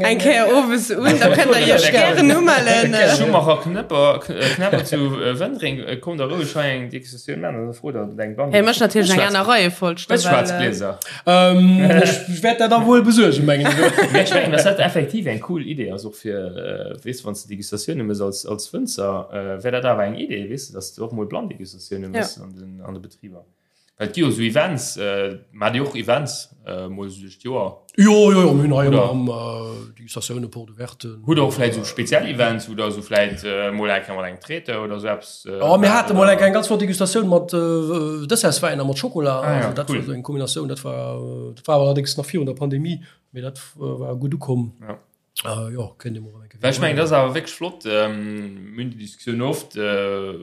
eng Kéier owes un, da kënnt der Iech gären umellen. Schumacher Knëpper, Knäpper zu Wëntreng, kommt da roueg hei eng Degustatioun maachen. Hie mécht natierlech eng aner Reiefolg. Hues schwaarz Glieser? Ech wäert dat da wuel besuergen, mengen ech. Mee ech mengen, dass dat effektiv eng cool Idee ass, och fir, weess de, wann s de Degustatioune méchs als, als Wënzer, wär dat awer eng Idee, weess de, dass de och mol Blann-Degustatioune méchs an den, an de Betriber. Well et gi jo esou Events, maacht Dir och Events mol esou duerch d'Joer? Jo, jo, jo, mir hunn hei ëmmer erëm Degustatioune, Porte ouverte. Hutt Der och vläicht esou speziell Events, wou Der esou vläicht mol eng Kéier mat engem Traiteur oder esou eppes Oh, mir hate mol eng ganz flott Degustatioun mat Dessertswäin a mat Schokola. Ah, ja, also, dat cool. war so eng Kombinatioun, dat war, dat war allerdéngs nach virun der Pandemie, mee dat war gutt ukomm. Ja. Äh, jo, kënnt Dir mol eng Kéier Well ech mengen, dat ass awer wierklech flott. Ähm, mir hunn déi Diskussioun oft, äh,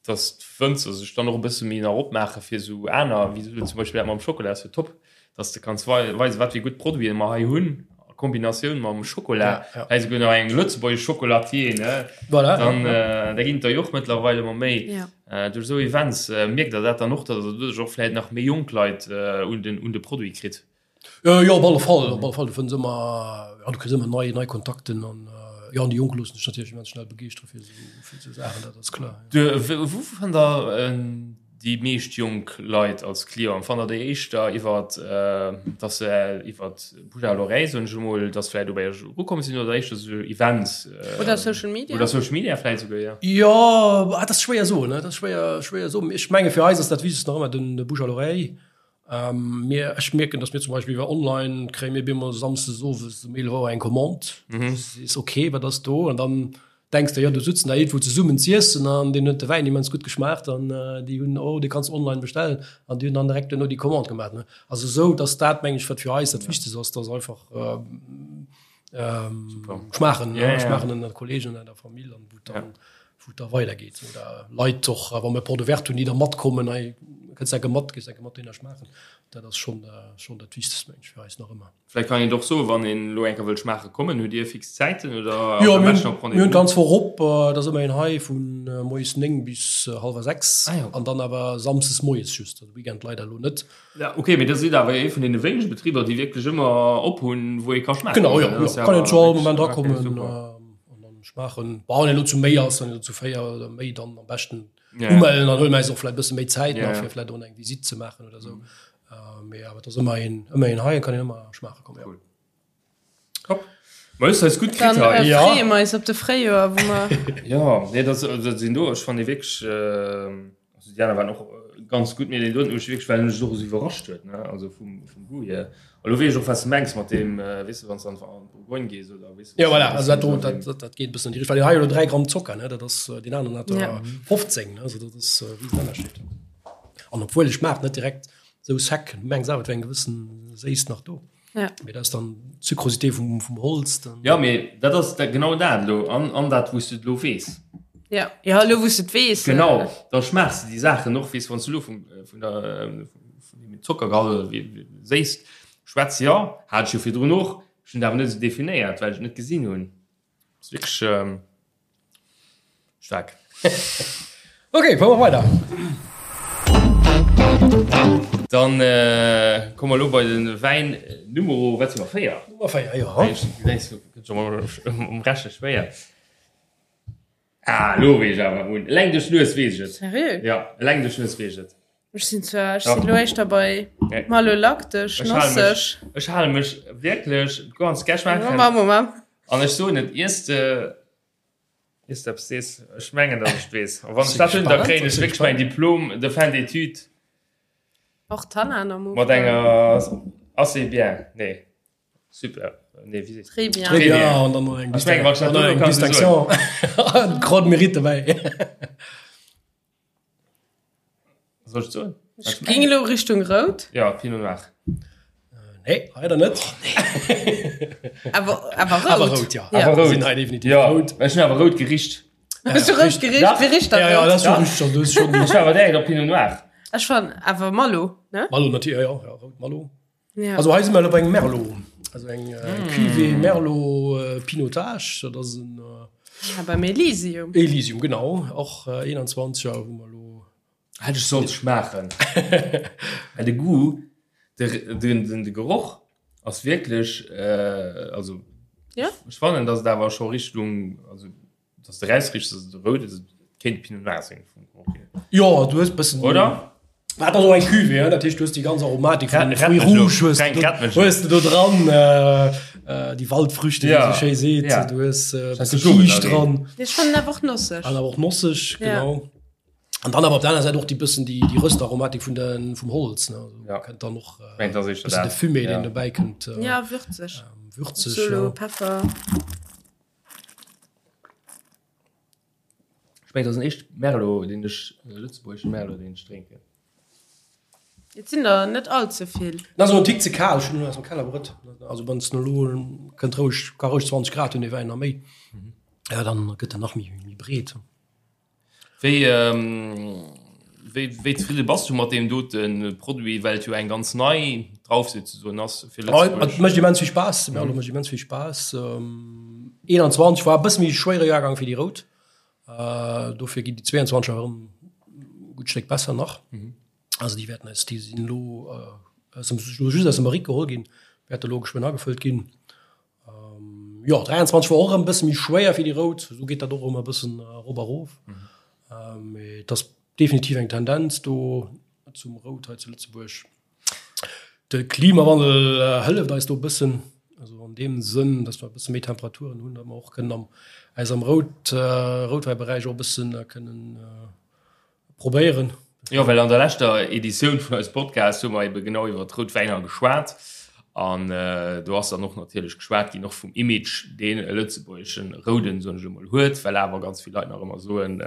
dass d'Wënzer sech dann och e bësse méi nach opmaache fir esou aner, wéi esou zum Beispill dat mam Schokola ass jo top, dass de kanns weisen, wat fir gutt Produiten mer hei hunn a Kombinatioun mam Schokola, Ja, ja. hei souguer nach eng lëtzebuergesch Chocolatier, ne? Voilà, Dann, ja. äh, da ginn et der jo och mëttlerweil ëmmer méi. Ja. Äh, duerch esou Events äh, mierkt der dat dann och, dass der doduerch och vläicht nach méi jonk Leit äh, un den, un de Produit kritt? Äh, jo, op alle Fall, op alle Fall. Du fënns ëmmer, ja, du kriss ëmmer nei, nei Kontakten an äh, jo, an déi Jonk loossen sech natierlech immens schnell begeeschtere fir esou, fir esou Saachen, dat ass kloer. Du, wou fannt der äh, Déi meescht jonk Leit als Clienten fannt der déi éischter iwwer, dass se iwwer Bouche à l'oreille, soen ech emol, dass vläicht dobäi erukomm sinn oder éischter esou Events? Oder Social Media. Oder Social Media vläicht esouguer, jo. Jo, dat ass schwéier soen, dat ass schwéier, schwéier soen. Ech menge fir eis ass dat Wichtegst nach ëmmer den Bouche à l'oreille. Mir, ech mierken, dass mir zum Beispill iwwer online kréie mir bemol samsdes owes um 11 Auer eng Commande. Du sees, okay, wat ass do? An dann denks de, jo, do sutzen der iergendwou zesummen z'iessen an deenen huet de Wäin immens gutt geschmaacht an déi hunn, oh, dee kanns online bestellen an déi hunn dann direkt duerno déi Commande gemaach. Ne? Also esou, dass dat, meng ech, wat fir eis dat Wichtegst ass, dass einfach schmaachen, Ja, ja. schmaachen ënner Kollegen, ënner der Famill an wou dann, wou et da weidergeet. Oder Leit och, wa mir Porte ouverte hunn, déi da matkommen, hei kënns enke mat, gees enke mat deene schmaachen. Dat ass schonn, schonn dat Wichtegst, meng ech, fir eis nach ëmmer. Vläicht kann een et och soen, wann een elo eng Kéier wëllt schmaache kommen, hutt Dir fix Zäiten oder Jo, ass am mir beschten op hunn, mir hunn Rendez-vous? d'ganz Woch op. Et ass ëmmer een hei vu moies 9 bis hallwer 6 Ah jo. an dann awer samsdes moies just, also Weekend leider elo net. Ja, ok, mee da sidd awer ee vun deene wéinege Betriber, déi wierklech ëmmer op hunn, wou ee ka schmaache Genau, jo, kommen. jo, Dat ass kann een awer zu all wierklech Moment ok, erakommen super. an dann schmaachen. Bon, wann een elo zu méi ass, dann elo zu 4 oder méi, dann am beschten Ja, ja. umellen, dann huele mir eis och vläicht e bësse méi Zäit Ja, nach, ja. fir vläicht och eng Visitt ze maachen oder esou. Mee awer et ass ëmmer een, ëmmer een hei, kann een ëmmer schmaache kommen, jo. Cool. Top. Ma hues eis gutt kritt Dann hei. äh, Ja. freeë mer eis op de Fréijoer, wou mer. Ja, nee, dat, dat sinn do, ech fand déi wierklech, also déi aner waren och ganz gutt, mee deen doten huet mech wierklech, well en mech och esou iwwerrascht huet, ne, also vum, vum Goût hier. A lo weess ech och, wat s de mengs mat deem, weess de, wann s de an d'Bourgogne gees oder weess de, Ja, voilà, also dat do, dat, dat, dat geet e bëssen an déi Richtung, well deen hei huet elo 3 Gramm Zocker, ne, dat ass, deen aneren hat der Ja. 15, ne, also dat ass e Riesenënnerscheed. An obwuel ech schmaacht net direkt sou sec, du mengs awer et wär eng gewëssen Séisst nach do. Ja. Mee dat ass dann d'Sucrosité vum, vum Holz. Dann. Ja, mee dat ass dat, genau dat elo an, an dat wou s du et elo weess. Ja, ja elo wou s du et weess. Genau, da schmaachs de déi Saachen och, weess, wann s du elo vum, vun der, vun dem Zockergehalt oder wéi Séisst schwätz, jo, hat ech jo virdrun och, ech hunn et awer net esou definéiert, well ech et net gesinn hunn. Ass wierklech staark. Ok, fuere mer weider. Dann komme mer elo bei de Wäin Numero, wat si mer, 4? Nummer 4, jo. Gëtt scho mol um Reche schwéier. Ah, elo weess ech awer un. Eleng duerch d'Nues weess ech et. Seriö? Ja, eleng duerch d'Nues weess ech et. Ech sinn zwar, ech sinn elo éischter bei malolaktesch, nosseg. Ech hale mech wierklech ganz gär schmaachen. Moment, Moment. An ech soen et, iers de, iers de eppes sees, ech mengen, datt ech et weess. A wann ech dat hunn, da kréien ech wierklech mäin Diplôme de fin d'études. Och Tannan am Ufank. Mat enger assez bien, nee. Super. Nee, wie sees Très bien. Très bien. An dann noch eng Distinction. Grande Mérite dabei. Soll ich soen? Ech ging elo Richtung rout. Ja, Pinot Noir. Nee, leider net. Oh, nee. Awer, awer rout. Awer rout, ja. ja. Awer rout. Sinn hei definitiv ja. rout. Ech hunn awer rout gericht. Hues du rout gericht? Ja. Wie richt dat Ja, ja, rout? dat ass schon richtig. Das ist schon Ech war awer direkt op Pinot Noir. Ech fan awer Malo, ne? Malo natürlich, ja, ja, rout Malo. Ja. Also hei si mer elo bei engem Merlot. Also eng mm. Cuvée Merlot äh, Pinotage, dat ass en äh, ja, beim Elysium. Elysium, genau. Och äh, 21er hu mer elo. Hätt ech sollt schmaachen. Well de Goût, de, den, den, de Geroch ass wierklech, äh, also ja? ech fannen, dass et awer scho Richtung, also dass de rausriechs, dass et rout ass, et kéint Pinot Noir sinn vum Geroch hier. Jo, du hues bëssen. Oder? Wat ass och eng Cuvée, hein? Dat heescht, du hues déi ganz Aromatik vun den Rett Fruits mech lo. rouges hues Fränk, du rett mech lo. hues du do dran, äh, äh, déi Waldfrüchte, wéi Ja, se schéi seet. ja. Du hues äh, Scheiss bësse de Blumen Kiischt da dran. Ech fannen awer och nosseg. An awer och nosseg, Ja. genau. An dann awer op der aner Säit och déi bëssen déi, déi Röstaromatik vun den, vum Holz, ne? Also, Ja. kënnt dann och äh, Mengt, das ist bëssen de dat. Fumé, Ja. deen dobäi kënnt. Äh, Ja, würzeg. ähm, würzeg, Solo, ja. Peffer. Ech mengen, dat ass den éischte Merlot, deen ech, lëtzebuergesche Merlot, deen ech drénken. Et sinn der net all ze vill. En ass elo en Tick ze kal, ech hunn en aus dem Keller brëtt. Also wann s de elo kënnt roueg, ka roueg 20 Grad hunn dee Wäin a méi, ja dann gëtt en nach méi méi breet. Wéi wéi wéi zefridde bass du mat deem dote Produit, well et jo eng ganz nei Drauf souzesoen ass fir Lëtzebuerg? Et mécht immens vill Spaass, de Merlot mécht immens vill Spaass. 21 war e bësse méi schwéiere Jahrgang wéi déi rout. Dofir ginn déi 22 erëm e gutt Stéck besser nach. Also déi wäerten eis, déi sinn elo aus dem, just aus dem Barrique geholl ginn, wäerte elo geschwënn agefëllt ginn. Jo, 23 war och erëm e bësse méi schwéier fir déi Rout. Esou geet dat och ëmmer e bëssen erop a rof. Mee et ass definitiv eng Tendenz do zum Rout hei zu Lëtzebuerg. De Klimawandel hëlleft eis do e bëssen, also an deem Sënn, datt mer e bësse méi Temperaturen hunn, datt mer och kënnen am eis am Rout Routwäiberäich och e bëssen kënnen probéieren. Jo, well an der leschter Editioun vun eisem Podcast hu mer ebe genau iwwer d'rout Wäiner geschwat an do ass dann och natierlech geschwat ginn och vum Image, deen e lëtzebuergeschen Rouden, soen ech emol, huet, well awer ganz vill Leit nach ëmmer soen,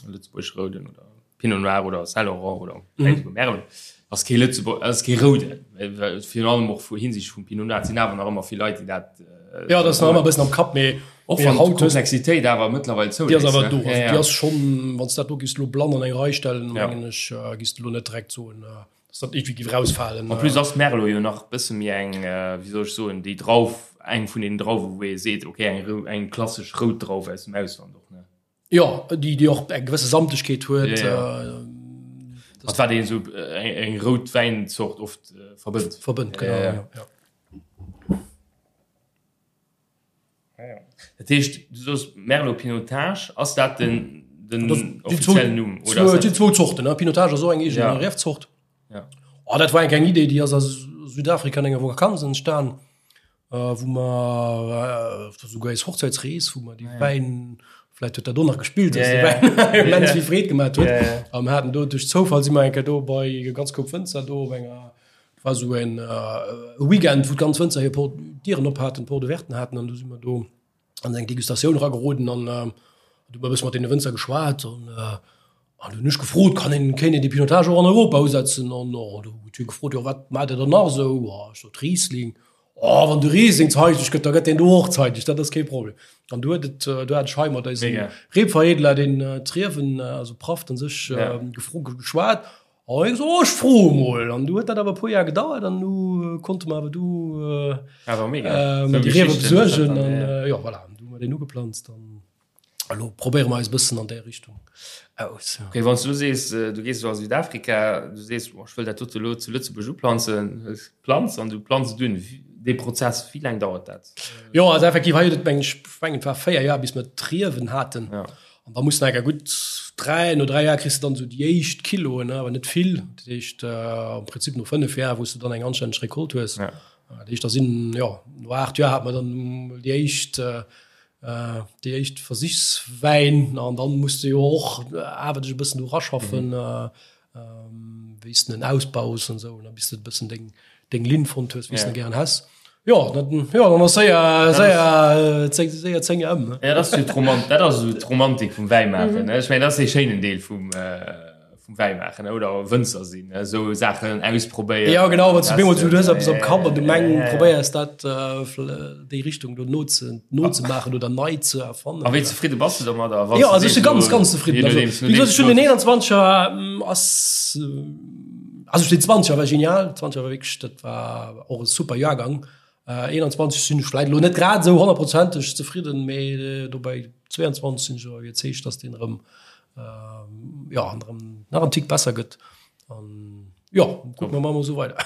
lëtzebuergesche Rouden oder Pinot Noir oder Saint Laurent oder mhm. sogar Merlot ass kee Lëtzebuerg ass kee roude virun allem och vu Hinsicht vum Pinot Noir sinn awer nach ëmmer vill Leit déi dat äh, ja das nach ëmmer bëssen am Kapp mee och wann haut Komplexitéit awer mëttlerweil zou déi ass awer do ja, ja. déi ass schon wann dat do gis lo blann an eng Rei stellen ja. mengen ech äh, gis du lo net direkt soen äh, dass dat irgendwie giff rausfalen En plus ass Merlot jo nach bësse méi eng äh, wéi soll ech soen déi Drauf eng vun den Drauwe wou ee seet okay eng eng klassesch rout Drauf aus dem Ausland och ne. Jo, déi déi och eng gewësse Samtegkeet huet. Ja, ja. Mat wat een esou eng, eng rout Wäinzort oft äh, verbënnt. Verbënnt, genau. Ja, ja. ja. Ja, ja. Dat heescht, du soos Merlot Pinotage, ass dat den, den offiziellen Numm? Oder ass dat... Zwou Zorten, ne? Pinotage ass och eng eegen ja. Riefzort. Ja. Oh, dat war eng Idee, déi ass a Südafrika an enger Vakanz entstan. wou mer souguer eis Hochzäitsrees, wou mer déi Wäin, vläicht huet dat do nach gespillt, dass de Wäin immens vill Freed gemaat huet. A mer haten do duerch Zoufall si mer eng Kéier do bei e ganz Koup Wënzer do op enger, dat war esou en Weekend, wou d'ganz Wënzer hir Port Dieren op haten, Porte ouverten haten an do si mer do an eng Degustatioun erageroden an du hu mer e bësse mat deene Wënzer geschwat an An du hunn ech gefrot, kann een, kéint een dee Pinotage och an Europa usetzen? An oh, du huet hie gefrot, jo wat maacht Der dann nach esou? Oh, ech sot Riesling. Oh, wann de Riesling zeideg gëtt, da gëtt deen do och zeideg, dat ass kee Problem. An du huet et, du hat ech hei mat eisem Rebveredeler, deen d'Riewen, also Praft an sech, gefro, geschwat. An hie gesot, oh, ech froe mol. An du huet dat awer e puer Jar gedauert an du konnte mer awer du déi Riewe besuergen. An jo, voilà. hu mer deen ugeplanzt an elo probéiere mer eis e bëssen an där Richtung aus. Okay, wann s du sees, du gees elo a Südafrika, du sees, boah, ech wëll dat dote elo zu Lëtzebuerg uplanzen, hues d'Planz an du planz et un. Dee Prozess, wéi laang dauert dat? Jo, also effektiv hei huet et meng ech, ech mengen et war 4 Joer bis mer d'Riewen haten. Ja. An da muss de enker gutt 3, no 3 Joer kriss de dann esou déi éischt Kiloen, awer net vill. Dat heescht am Prinzip no 5 Joer, wou s de dann eng anstänneg Recolte hues. Ja. Dat heescht da sinn, jo, no 8 Joer hat mer dann mol déi éischt, déi éischt Versichswäin. An dann muss de jo och awer dech e bëssen do raschaffen. Wéi s de en ausbaus an esou, bis de e bëssen deng, deng Linn fonnt hues, wéi s de gären häss. Jo, dat, jo, dann ass séier, séier, zéng, séier 10 ëm. Ja, dat ass jo d'Romant, dat ass esou d'Romantik vum Wäimaachen, ne? Ech mengen, dat ass dee schéinen Deel vum, vum Wäimaachen, oder Wënzer sinn, ne? Esou Saachen ausprobéieren. Ja, genau, wann s du bemol esou, du hues eppes am Kapp an du meng, probéiers dat, déi Richtung do noze, nozemaachen oder nei ze erfannen. A wéi zefridde bass du domadder? Jo, also ech si ganz, ganz zefridden. Also, wéi gesot, ech hunn den 21er ass, also den 20er war genial, 20er war wierklech, dat war och e super Jahrgang. 21 sinn ech vläit elo net grad esou honnertprozenteg zefridden, mee dobäi 22 sinn ech awer iwwerzeegt, dass deen erëm, jo, erëm nach en Tick besser gëtt. An jo, kucke mer mol esou weider.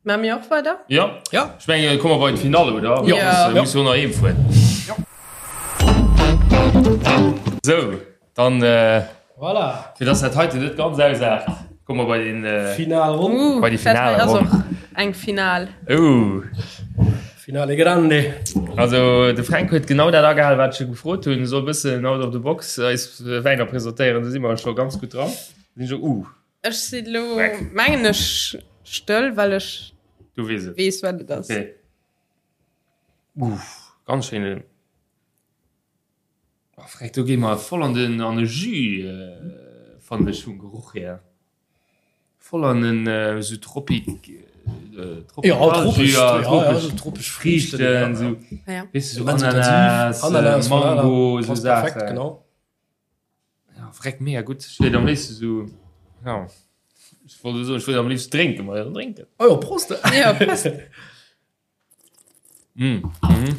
Maache mir och weider? Ja. Ja. Ech mengen, komme mer bei d'Finall, oder? Ja. Mir musse jo nach heem fueren. Ja. Sou, dann, Voilà. fir dass dat heiten net ganz ausaart, komme mer bei den, Finalronn. Uh, bei déi dat hei ass Finalronn. och eng Final. Uh. Finale grande. Also, de Fränk huet genau dat agehal, wat ech e gefrot hunn. E soll e bëssen out of the box eis Wäiner presentéieren. Do si mer scho ganz gutt dran. Sinn scho, uh. Ech si lo, mengen ech, stëll, well ech Du weess et. weess, wat et ass. Okay. Uff, ganz schéine. Oh, freck, do gi mer voll an den an de Jus, äh, fannen ech vum Geruch hier. Voll an den äh, so Tropik, äh, Ja, tropesch, Jus, ja, ja, tropesch ja, so tropesch Friichten, Friichten, so, Ja. weess du, so Immens Ananas, intensiv. Ananas, äh, Mango, voilà, so passt perfekt, Saachen. genau. Ja, freck mega gutt. Ech wéilt am léifsten so, ja, ech wollt elo soen, ech wéilt am léifsten drénken, ma jo, drénken. Oh jo, Prost! Ja, Prost! Mm, mhm.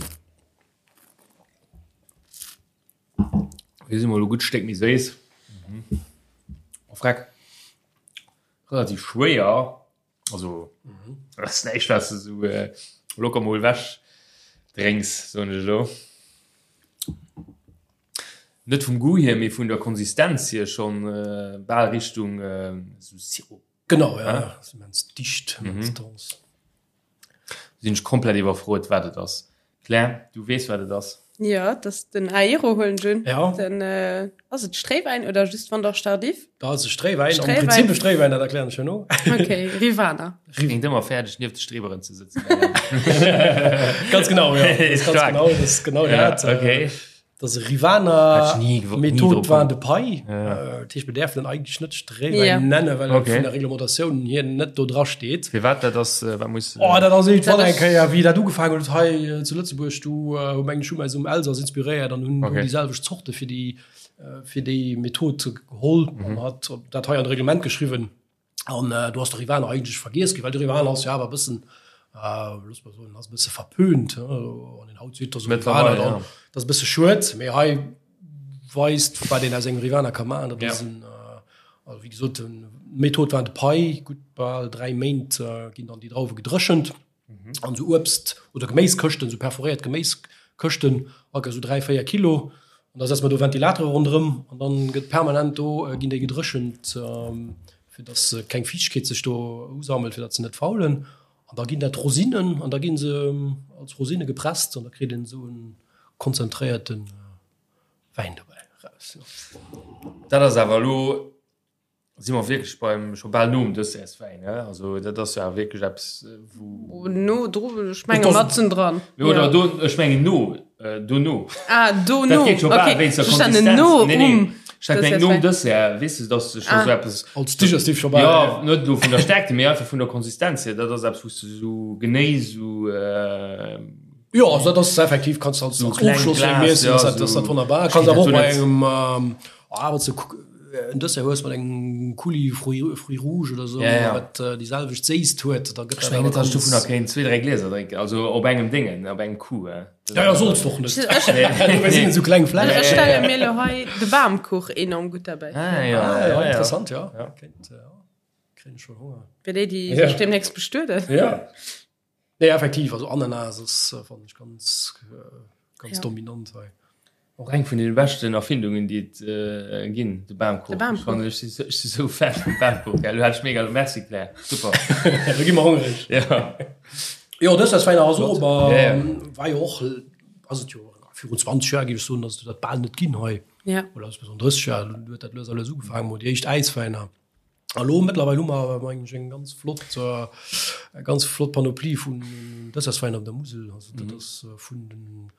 Déi si mol e gutt Stéck méi séiss. Mhm. Oh, freck. Relativ schwéier. Also, dat ass näischt, wat s de sou locker mol ewech drénks, soen ech elo. Net vum Goût hier, mee vun der Konsistenz hier schonn bal Richtung sou Sirop. Genau, ja, ass immens dicht, immens dense. Sinn ech komplett iwwerfrot, wat et ass. Claire, du weess wat et ass? Jo, et ass den Aero huelen ech un. Ja. Den, ass et Stréiwäin oder just Vendange Tardif? Dat ass e Stréiwäin, am Stréiwäin. Prinzip e Stréiwäin, dat erklären ech herno. Okay, Rivaner. Klingt ëmmer fäerdeg nieft de Streeberen ze sëtzen. Ganz genau, ja. Das ist ganz Stark. genau, das ist genau Ja, dat. okay. Dat ass e Hätt Rivaner ech nie gewo- nie Method drop Vin de Paille. Ja. Äh, Dat heescht, mir däerfen en eigentlech net Stréiwäin Ja. nennen, well et Okay. vun der Reglementatioun hier net do dra steet. Firwat dat ass, äh, wat muss. Oh, dat ass iergendwann Dat eng ass- Kéier, wéi dat ugefaangen huet hei äh, zu Lëtzebuerg, du äh, hu mengen ech hu eis um Elsass inspiréiert an hunn Okay. déi selwecht Zorte fir déi äh, fir déi Method geholl Mhm. an hat dat hei an d'Reglement geschriwwen. An äh, du hast de Rivaner eigentlech vergiess ginn, well de Rivaner ass jo awer e bëssen, äh, looss mer soen, ass e bësse verpönt. An den haut seet, dass Rivaner dann, ja. dat ass e bësse schued, mee hei weist, wat een aus engem Rivaner ka maachen. Dat ass Ja. en, äh, also wéi gesot, en Method war de Pai, gutt bal 3 Méint äh, ginn dann déi Drauwe gedréchent. An sou Uebst oder Geméiskëschten, sou perforéiert Geméiskëschten, all sou 3, 4 Kilo. An da setze mer do Ventilatere ronderëm an dann gëtt permanent do, ginn déi gedréchent, fir dass keng Fiichtegkeet sech do usammelt, fir datt se net faulen. An da ginn dat Rosinen an da gi se als Rosine gepresst an da kritt een esou e konzentréierte Wäin dobäi eraus. Dat ass awer elo Si mer wierklech beim scho bal nom Dessertswäin, ne? Also dat ass jo awer wierklech eppes, wou. No dru, ech menge matzen dran. Oder do, ech mengen no, dono. Ah, dono, Dat geet scho bal wéinst der Konsistenz. No Nee, nee, um ech hat gemengt nom Dessert, weess de, dass de scho sou eppes. Als Digestif scho bal. Jo, net elo vun der Stärkte, mee einfach vun der Konsistenz hier. Dat ass eppes, wou s de sou genee sou. Jo, also dat ass effektiv, kanns de als Sou kleng Ofschloss Glas, miessen, ja, ass dat sou. wonnerbar. Kanns awer och Steet bei dat do net. engem, ah, wat se. en Dessert hues mat engem Coulis fruits fruits rouges oder esou, Ja, ja. wat déi selwecht Séisst huet, da gëtt Ech dat mengen awer net, dass ech ganz. dovunner kéint zwee, dräi Glieser drénken, also op engem Déngen, op engem Coup. Ja, ja, solls de och net. Dofir sinn et esou kleng Ech Fläschen. stelle mir elo hei de Bamkuch enorm gutt derbäi vir. Ah, ja, Ah, ja, ja, ja. interessant, ja. Ja. Kéint, ja. Kréien ech schon Honger. Fir déi, déi Ja. sech deemnächst bestueden. Ja. Nee, effektiv, also Ananas ass, fannen ech, ganz, ganz Ja. dominant hei. Och eng vun den beschten Erfindungen déi et ginn, de Bamkuch. De Bamkuch. Ech fannen, ech si ech si sou Fan vum Bamkuch, gell. Lo hat ech mega, merci Claire, super. Lo gi mer hongreg. Ja. Jo, Dessertswäiner ass och, aber Ja, ja. war jo och, ass et jo virun 20 Joer, géif ech soen, ass et dat bal net ginn hei. Ja. Oder ass et 30 Joer, huet dat lues a lues ugefaangen, mol déi éischt Äiswäiner. A lo mëttlerweil hu mer awer mengen ech eng ganz flott, eng ganz flott Panoplie vun Dessertswäiner op der Musel. Also dat ass vun den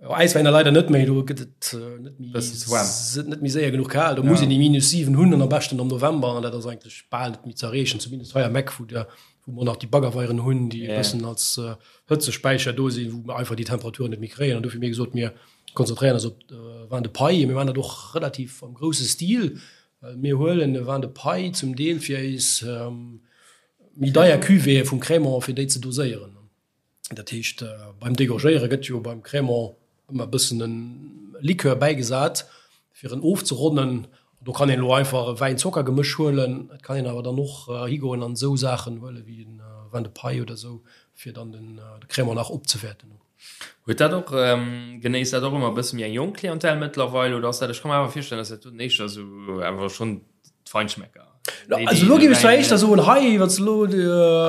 Äiswäiner leider net méi, do gëtt et net méi, Bëssen ze waarm. net méi séier genuch kal. Do muss een déi minus 7 hunn an am beschten am November an dat ass eigentlech bal net méi ze erreechen, zumindest hei am Eck, wou der, wou mer nach déi Baggerweieren hunn, déi e bëssen als Hëtzespäicher do sinn, wou mer einfach déi Temperaturen net méi kréien. An dofir hu mir gesot, mir konzentréieren eis op Vin de Paille. Mir maachen dat och relativ am grousse Stil. Well mir huelen e Vin de Paille zum Deel fir eis méi deier Cuvéeë vum Crémant, fir déi ze doséieren. Dat heescht, beim Dégorgéiere gëtt jo beim Crémant ëmmer e bëssen e Likör bäigesat, fir en ofzeronnen. Do kann een elo einfach e Wäin-Zocker-Gemësch huelen. Et kann een awer dann och higoen an esou Saachen huele wéi e Vin de Paille oder esou, fir dann de Crémant nach opzewäerten. Huet dat och, genéisst dat och ëmmer e bësse méi eng jonk Clientèle mëttlerweil oder ass dat, ech ka mer awer virstellen, dass dat doten éischter esou awer schonn d'Feinschmecker. Also elo géif ech zwar éischter soen, hei, wann s de elo.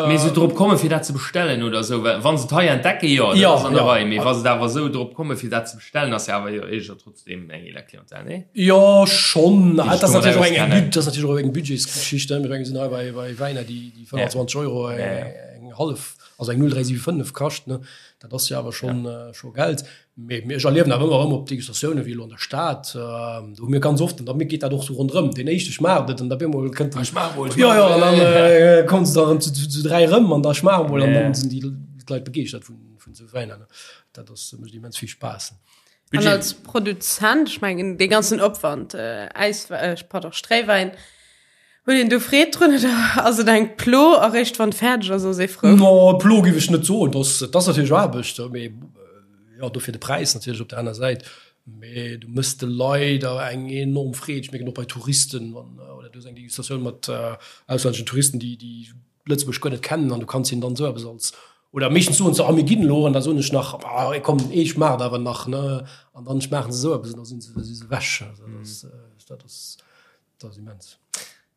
Mee esou drop kommen, fir dat ze bestellen oder esou, well wa se et hei entdecken, jo, dat ass an der Rei, mee wa se et awer esou drop kommen, fir dat ze bestellen, ass jo awer jo éischter trotzdem eng eeler Clientèle, nee? Jo, schonn. Dat ass natierlech och eng, dat ass natierlech och eng Budgetsgeschicht, ne. Mir sinn hei bei, bei Wäiner, déi 25 Euro eng hallef. Also eng 0375 kascht, ne, dat ass jo awer schonn scho Geld. Mee ech erliewen awer ëmmer erëm op Degustatiounen, wéi elo an der Stad, do hu mir ganz oft, an da geet dat och sou ronderëm, deen éischte schmaacht et an da op eemol kënnt den, Ech schmaach mol, jo, jo, an dann kommen se da erëm zu zu dräi erëm an da schmaache mol an dann sinn déi Leit begeeschtert vun vun esou Wäiner, ne. Dat ass, mécht immens vill Spaass. An als Produzent, ech mengen dee ganzen Opwand, Äis, pardon, Stréiwäin, Huet een do Freed drun oder ass et eng Plo a réischt wann et fäerdeg ass, ass ee frou? No, Plo géif ech net soen. Dat ass natierlech Aarbecht, mee jo, dofir de Präis natierlech op der aner Säit. Mee du méchs de Leit awer eng enorm Freed. Ech mierken och bei Touristen, wann oder du hues eng Degustatioun mat auslänneschen Touristen, déi déi Lëtzebuerg guer net kennen an du kanns hinnen dann esou eppes als oder meeschtens soen se, ah mir ginn elo an da soen ech nach, ah komm ee schmaacht awer nach, ne? An dann schmaachen se esou eppes an da si se si se ewech. Also dat ass dat ass. Dat ass immens.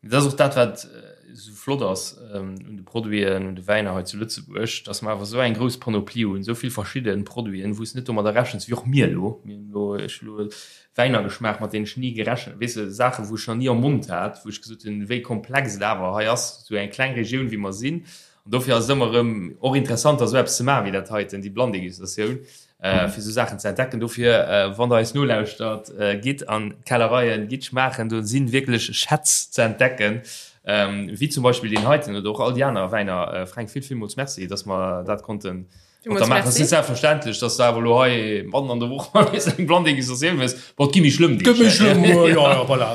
Dat ass och dat, wat esou flott ass un de Produiten, un de Wäiner hei zu Lëtzebuerg, dass mer awer esou eng grouss Panoplie hunn, esou vill verschidde Produiten, wou s de net domadder rechens, wéi och mir elo. Mir hunn elo, ech hu elo Wäiner geschmaacht, mat deenen ech ni gerechent, weess de, Saachen, wou ech nach ni am Mond hat, wou ech gesot hunn, wéi komplex et awer hei ass, esou eng kleng Regioun, wéi mer sinn. An dofir ass et ëmmer erëm och interessant, da esou eppes ze maachen wéi dat heiten, déi Blanndégustatioun. fir esou Saachen ze entdecken. Dofir, wann der eis nolauschtert, gitt an d'Kellereien, gitt schmaachen, do si wierklech Schätz ze entdecken, wéi zum Beispill deen heiten oder och all déi aner Wäiner. Fränk, vill, villmools Merci, dass mer dat konnte mat der maachen. Et ass net selbstverständlech, dass de awer elo hei matten an der Woch nees eng Blanndégustatioun hues. Bon, et gi méi schlëmm Deeg. Gëtt méi schlëmm, jo, jo, voilà.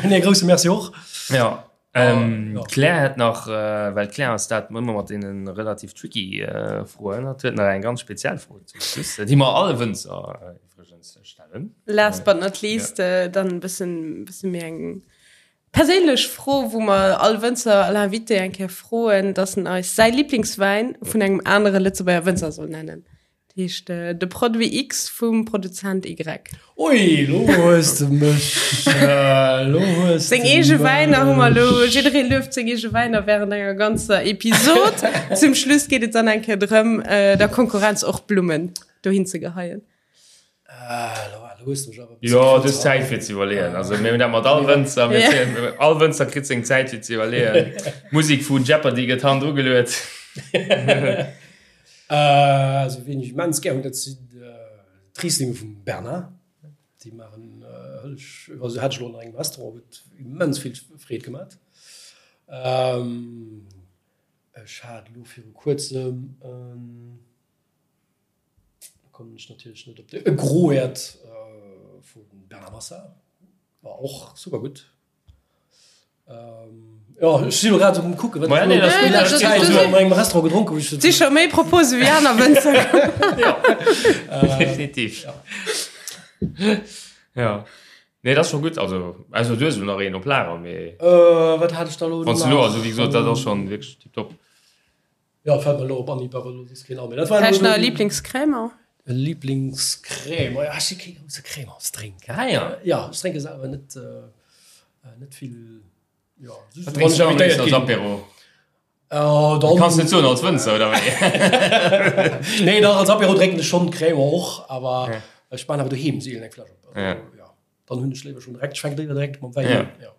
Nee, grousse Merci och. Jo. D'Claire hätt nach, well d'Claire ass dat ëmmer mat deene relativ tricky Froen, hatt huet nach eng ganz speziell Fro zum Schluss, déi mer alle Wënzer iwwregens stellen. Last but not least dann e bëssen, bësse méi eng perséinlech Fro, wou mer all Wënzer, all Invité eng Kéier froen, dass en eis säi Liblingswäin vun engem anere Lëtzebuerger Wënzer soll nennen. Dat heescht de Produit X vum Produzent Y. Ui, lo hues de mech, lo hues de Seng eege Wäiner hu mer elo, jidderee lueft seng eege Wäiner während enger ganzer Episod. Zum Schluss geet et dann eng Kéier drëm, der Konkurrenz och Blummen dohin ze geheien. Lo hues de mech awer e bësse Jo, du hues Zäit fir ze iwwerleeën. Also mir hunn dat mat all Wënzer, mir zéien, all Wënzer kritt seng Zäit fir ze iwwerleeën. D'Musek vu Jeopardy gëtt hannendru geluet. Also wien ech immens gär hunn, dat sinn d'Rieslinge vum Bernard. Déi maachen hëllesch, also hat ech elo an engem Restaurant, huet immens vill Freed gemat. Ech hat elo viru kuerzem en, do kommen ech natierlech net op de, e Groert vum Bernard Massard, war och super gutt. Jo, ech sinn elo grad um kucken, wat ech déi lescht Zäit esou an engem Restaurant gedronk hunn. Et si scho méi Propose wéi aner Wënzer. Jo, definitiv. Jo. Nee, dat ass scho gutt. Also, ausser du hues elo nach een op Lager, mee. Wat hat ech da elo nach? Wann s du elo, also wéi gesot, dat ass schonn wierklech tiptop. Jo, fält mer elo op Anhieb awer elo soss keen an. Mee dat war elo. Vläicht nach e Liblingscrèmant? E Liblingscrèmant? Jo, ech si kee grousse Crémantsdrénker. Ah jo. Jo, ech drénke selwer net, net vill. Jo, just wann ech invitéiert ginn. Als Apéro? Dann. Kanns net soen als Wënzer, oder wéi? Nee, dach, als Apéro drénken ech schonn Crémant och, awer ech maan awer doheem seelen eng Fläsch op. Also, jo, dann hunn ech léiwer schonn direkt, ech fänke léiwer direkt mam Wäin un. Jo.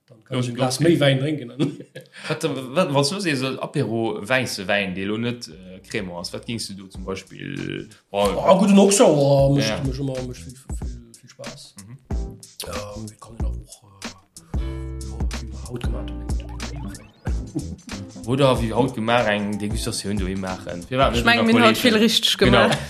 Dann kann ech e Glas méi Wäin drénken. Wat, wat, wann s du sees Apéro wäisse Wäin, dee lo net Crémant ass, wat géings du do zum Beispill? Bon, ah, gudden Auxerrois mécht ja. mech ëmmer mécht vill, vill, vill Spaass. Mhm. Ähm, kann een awer och äh, wéi mer haut gemaach hunn, eng gudde Pinot Nero. Oder wéi haut gemaach eng Degustatioun doheem maachen. Firwat net? Ech mengen, mir hunn haut vill richteg gemaach. Genau.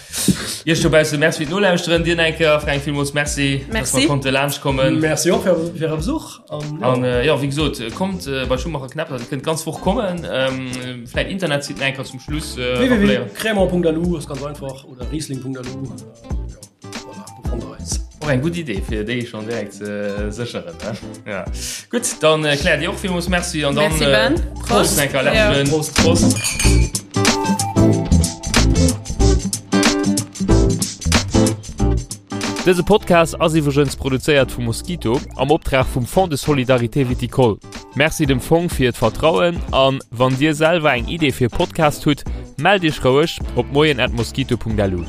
Iech dobausse Merci fir d'Nolauschteren. Dir eng Kéier, Fränk, villmools Merci, Merci. dass mer konnte laanscht kommen. Merci och fir fir Äre Besuch. An, ja. An äh, ja, wéi gesot, kommt äh, bei Schumacher Knäpper, Dir kënnt d'ganz Woch kommen. Ähm, vläit Internetsite eng Kéier zum Schluss äh, rappelléieren. www.cremant.lu ass ganz einfach oder riesling.lu. Äh, ja. Voilà, do fannt der eis. Och eng gutt Idee fir déi schon direkt ze sécheren. Ne? Ja. Gutt, dann äh, Claire dir och villmools Merci an dann Merci, Ben. äh, Prost Prost. enker Ja. Prost. Prost. Dëse Podcast ass iwwregens produzéiert vu Mosquito am Optrag vum Fonds de Solidarité Viticole. Merci dem Fong fir d'Vertrauen an wann dir selwer eng Idee fir e Podcast hutt, mellt iech roueg op moien@mosquito.lu.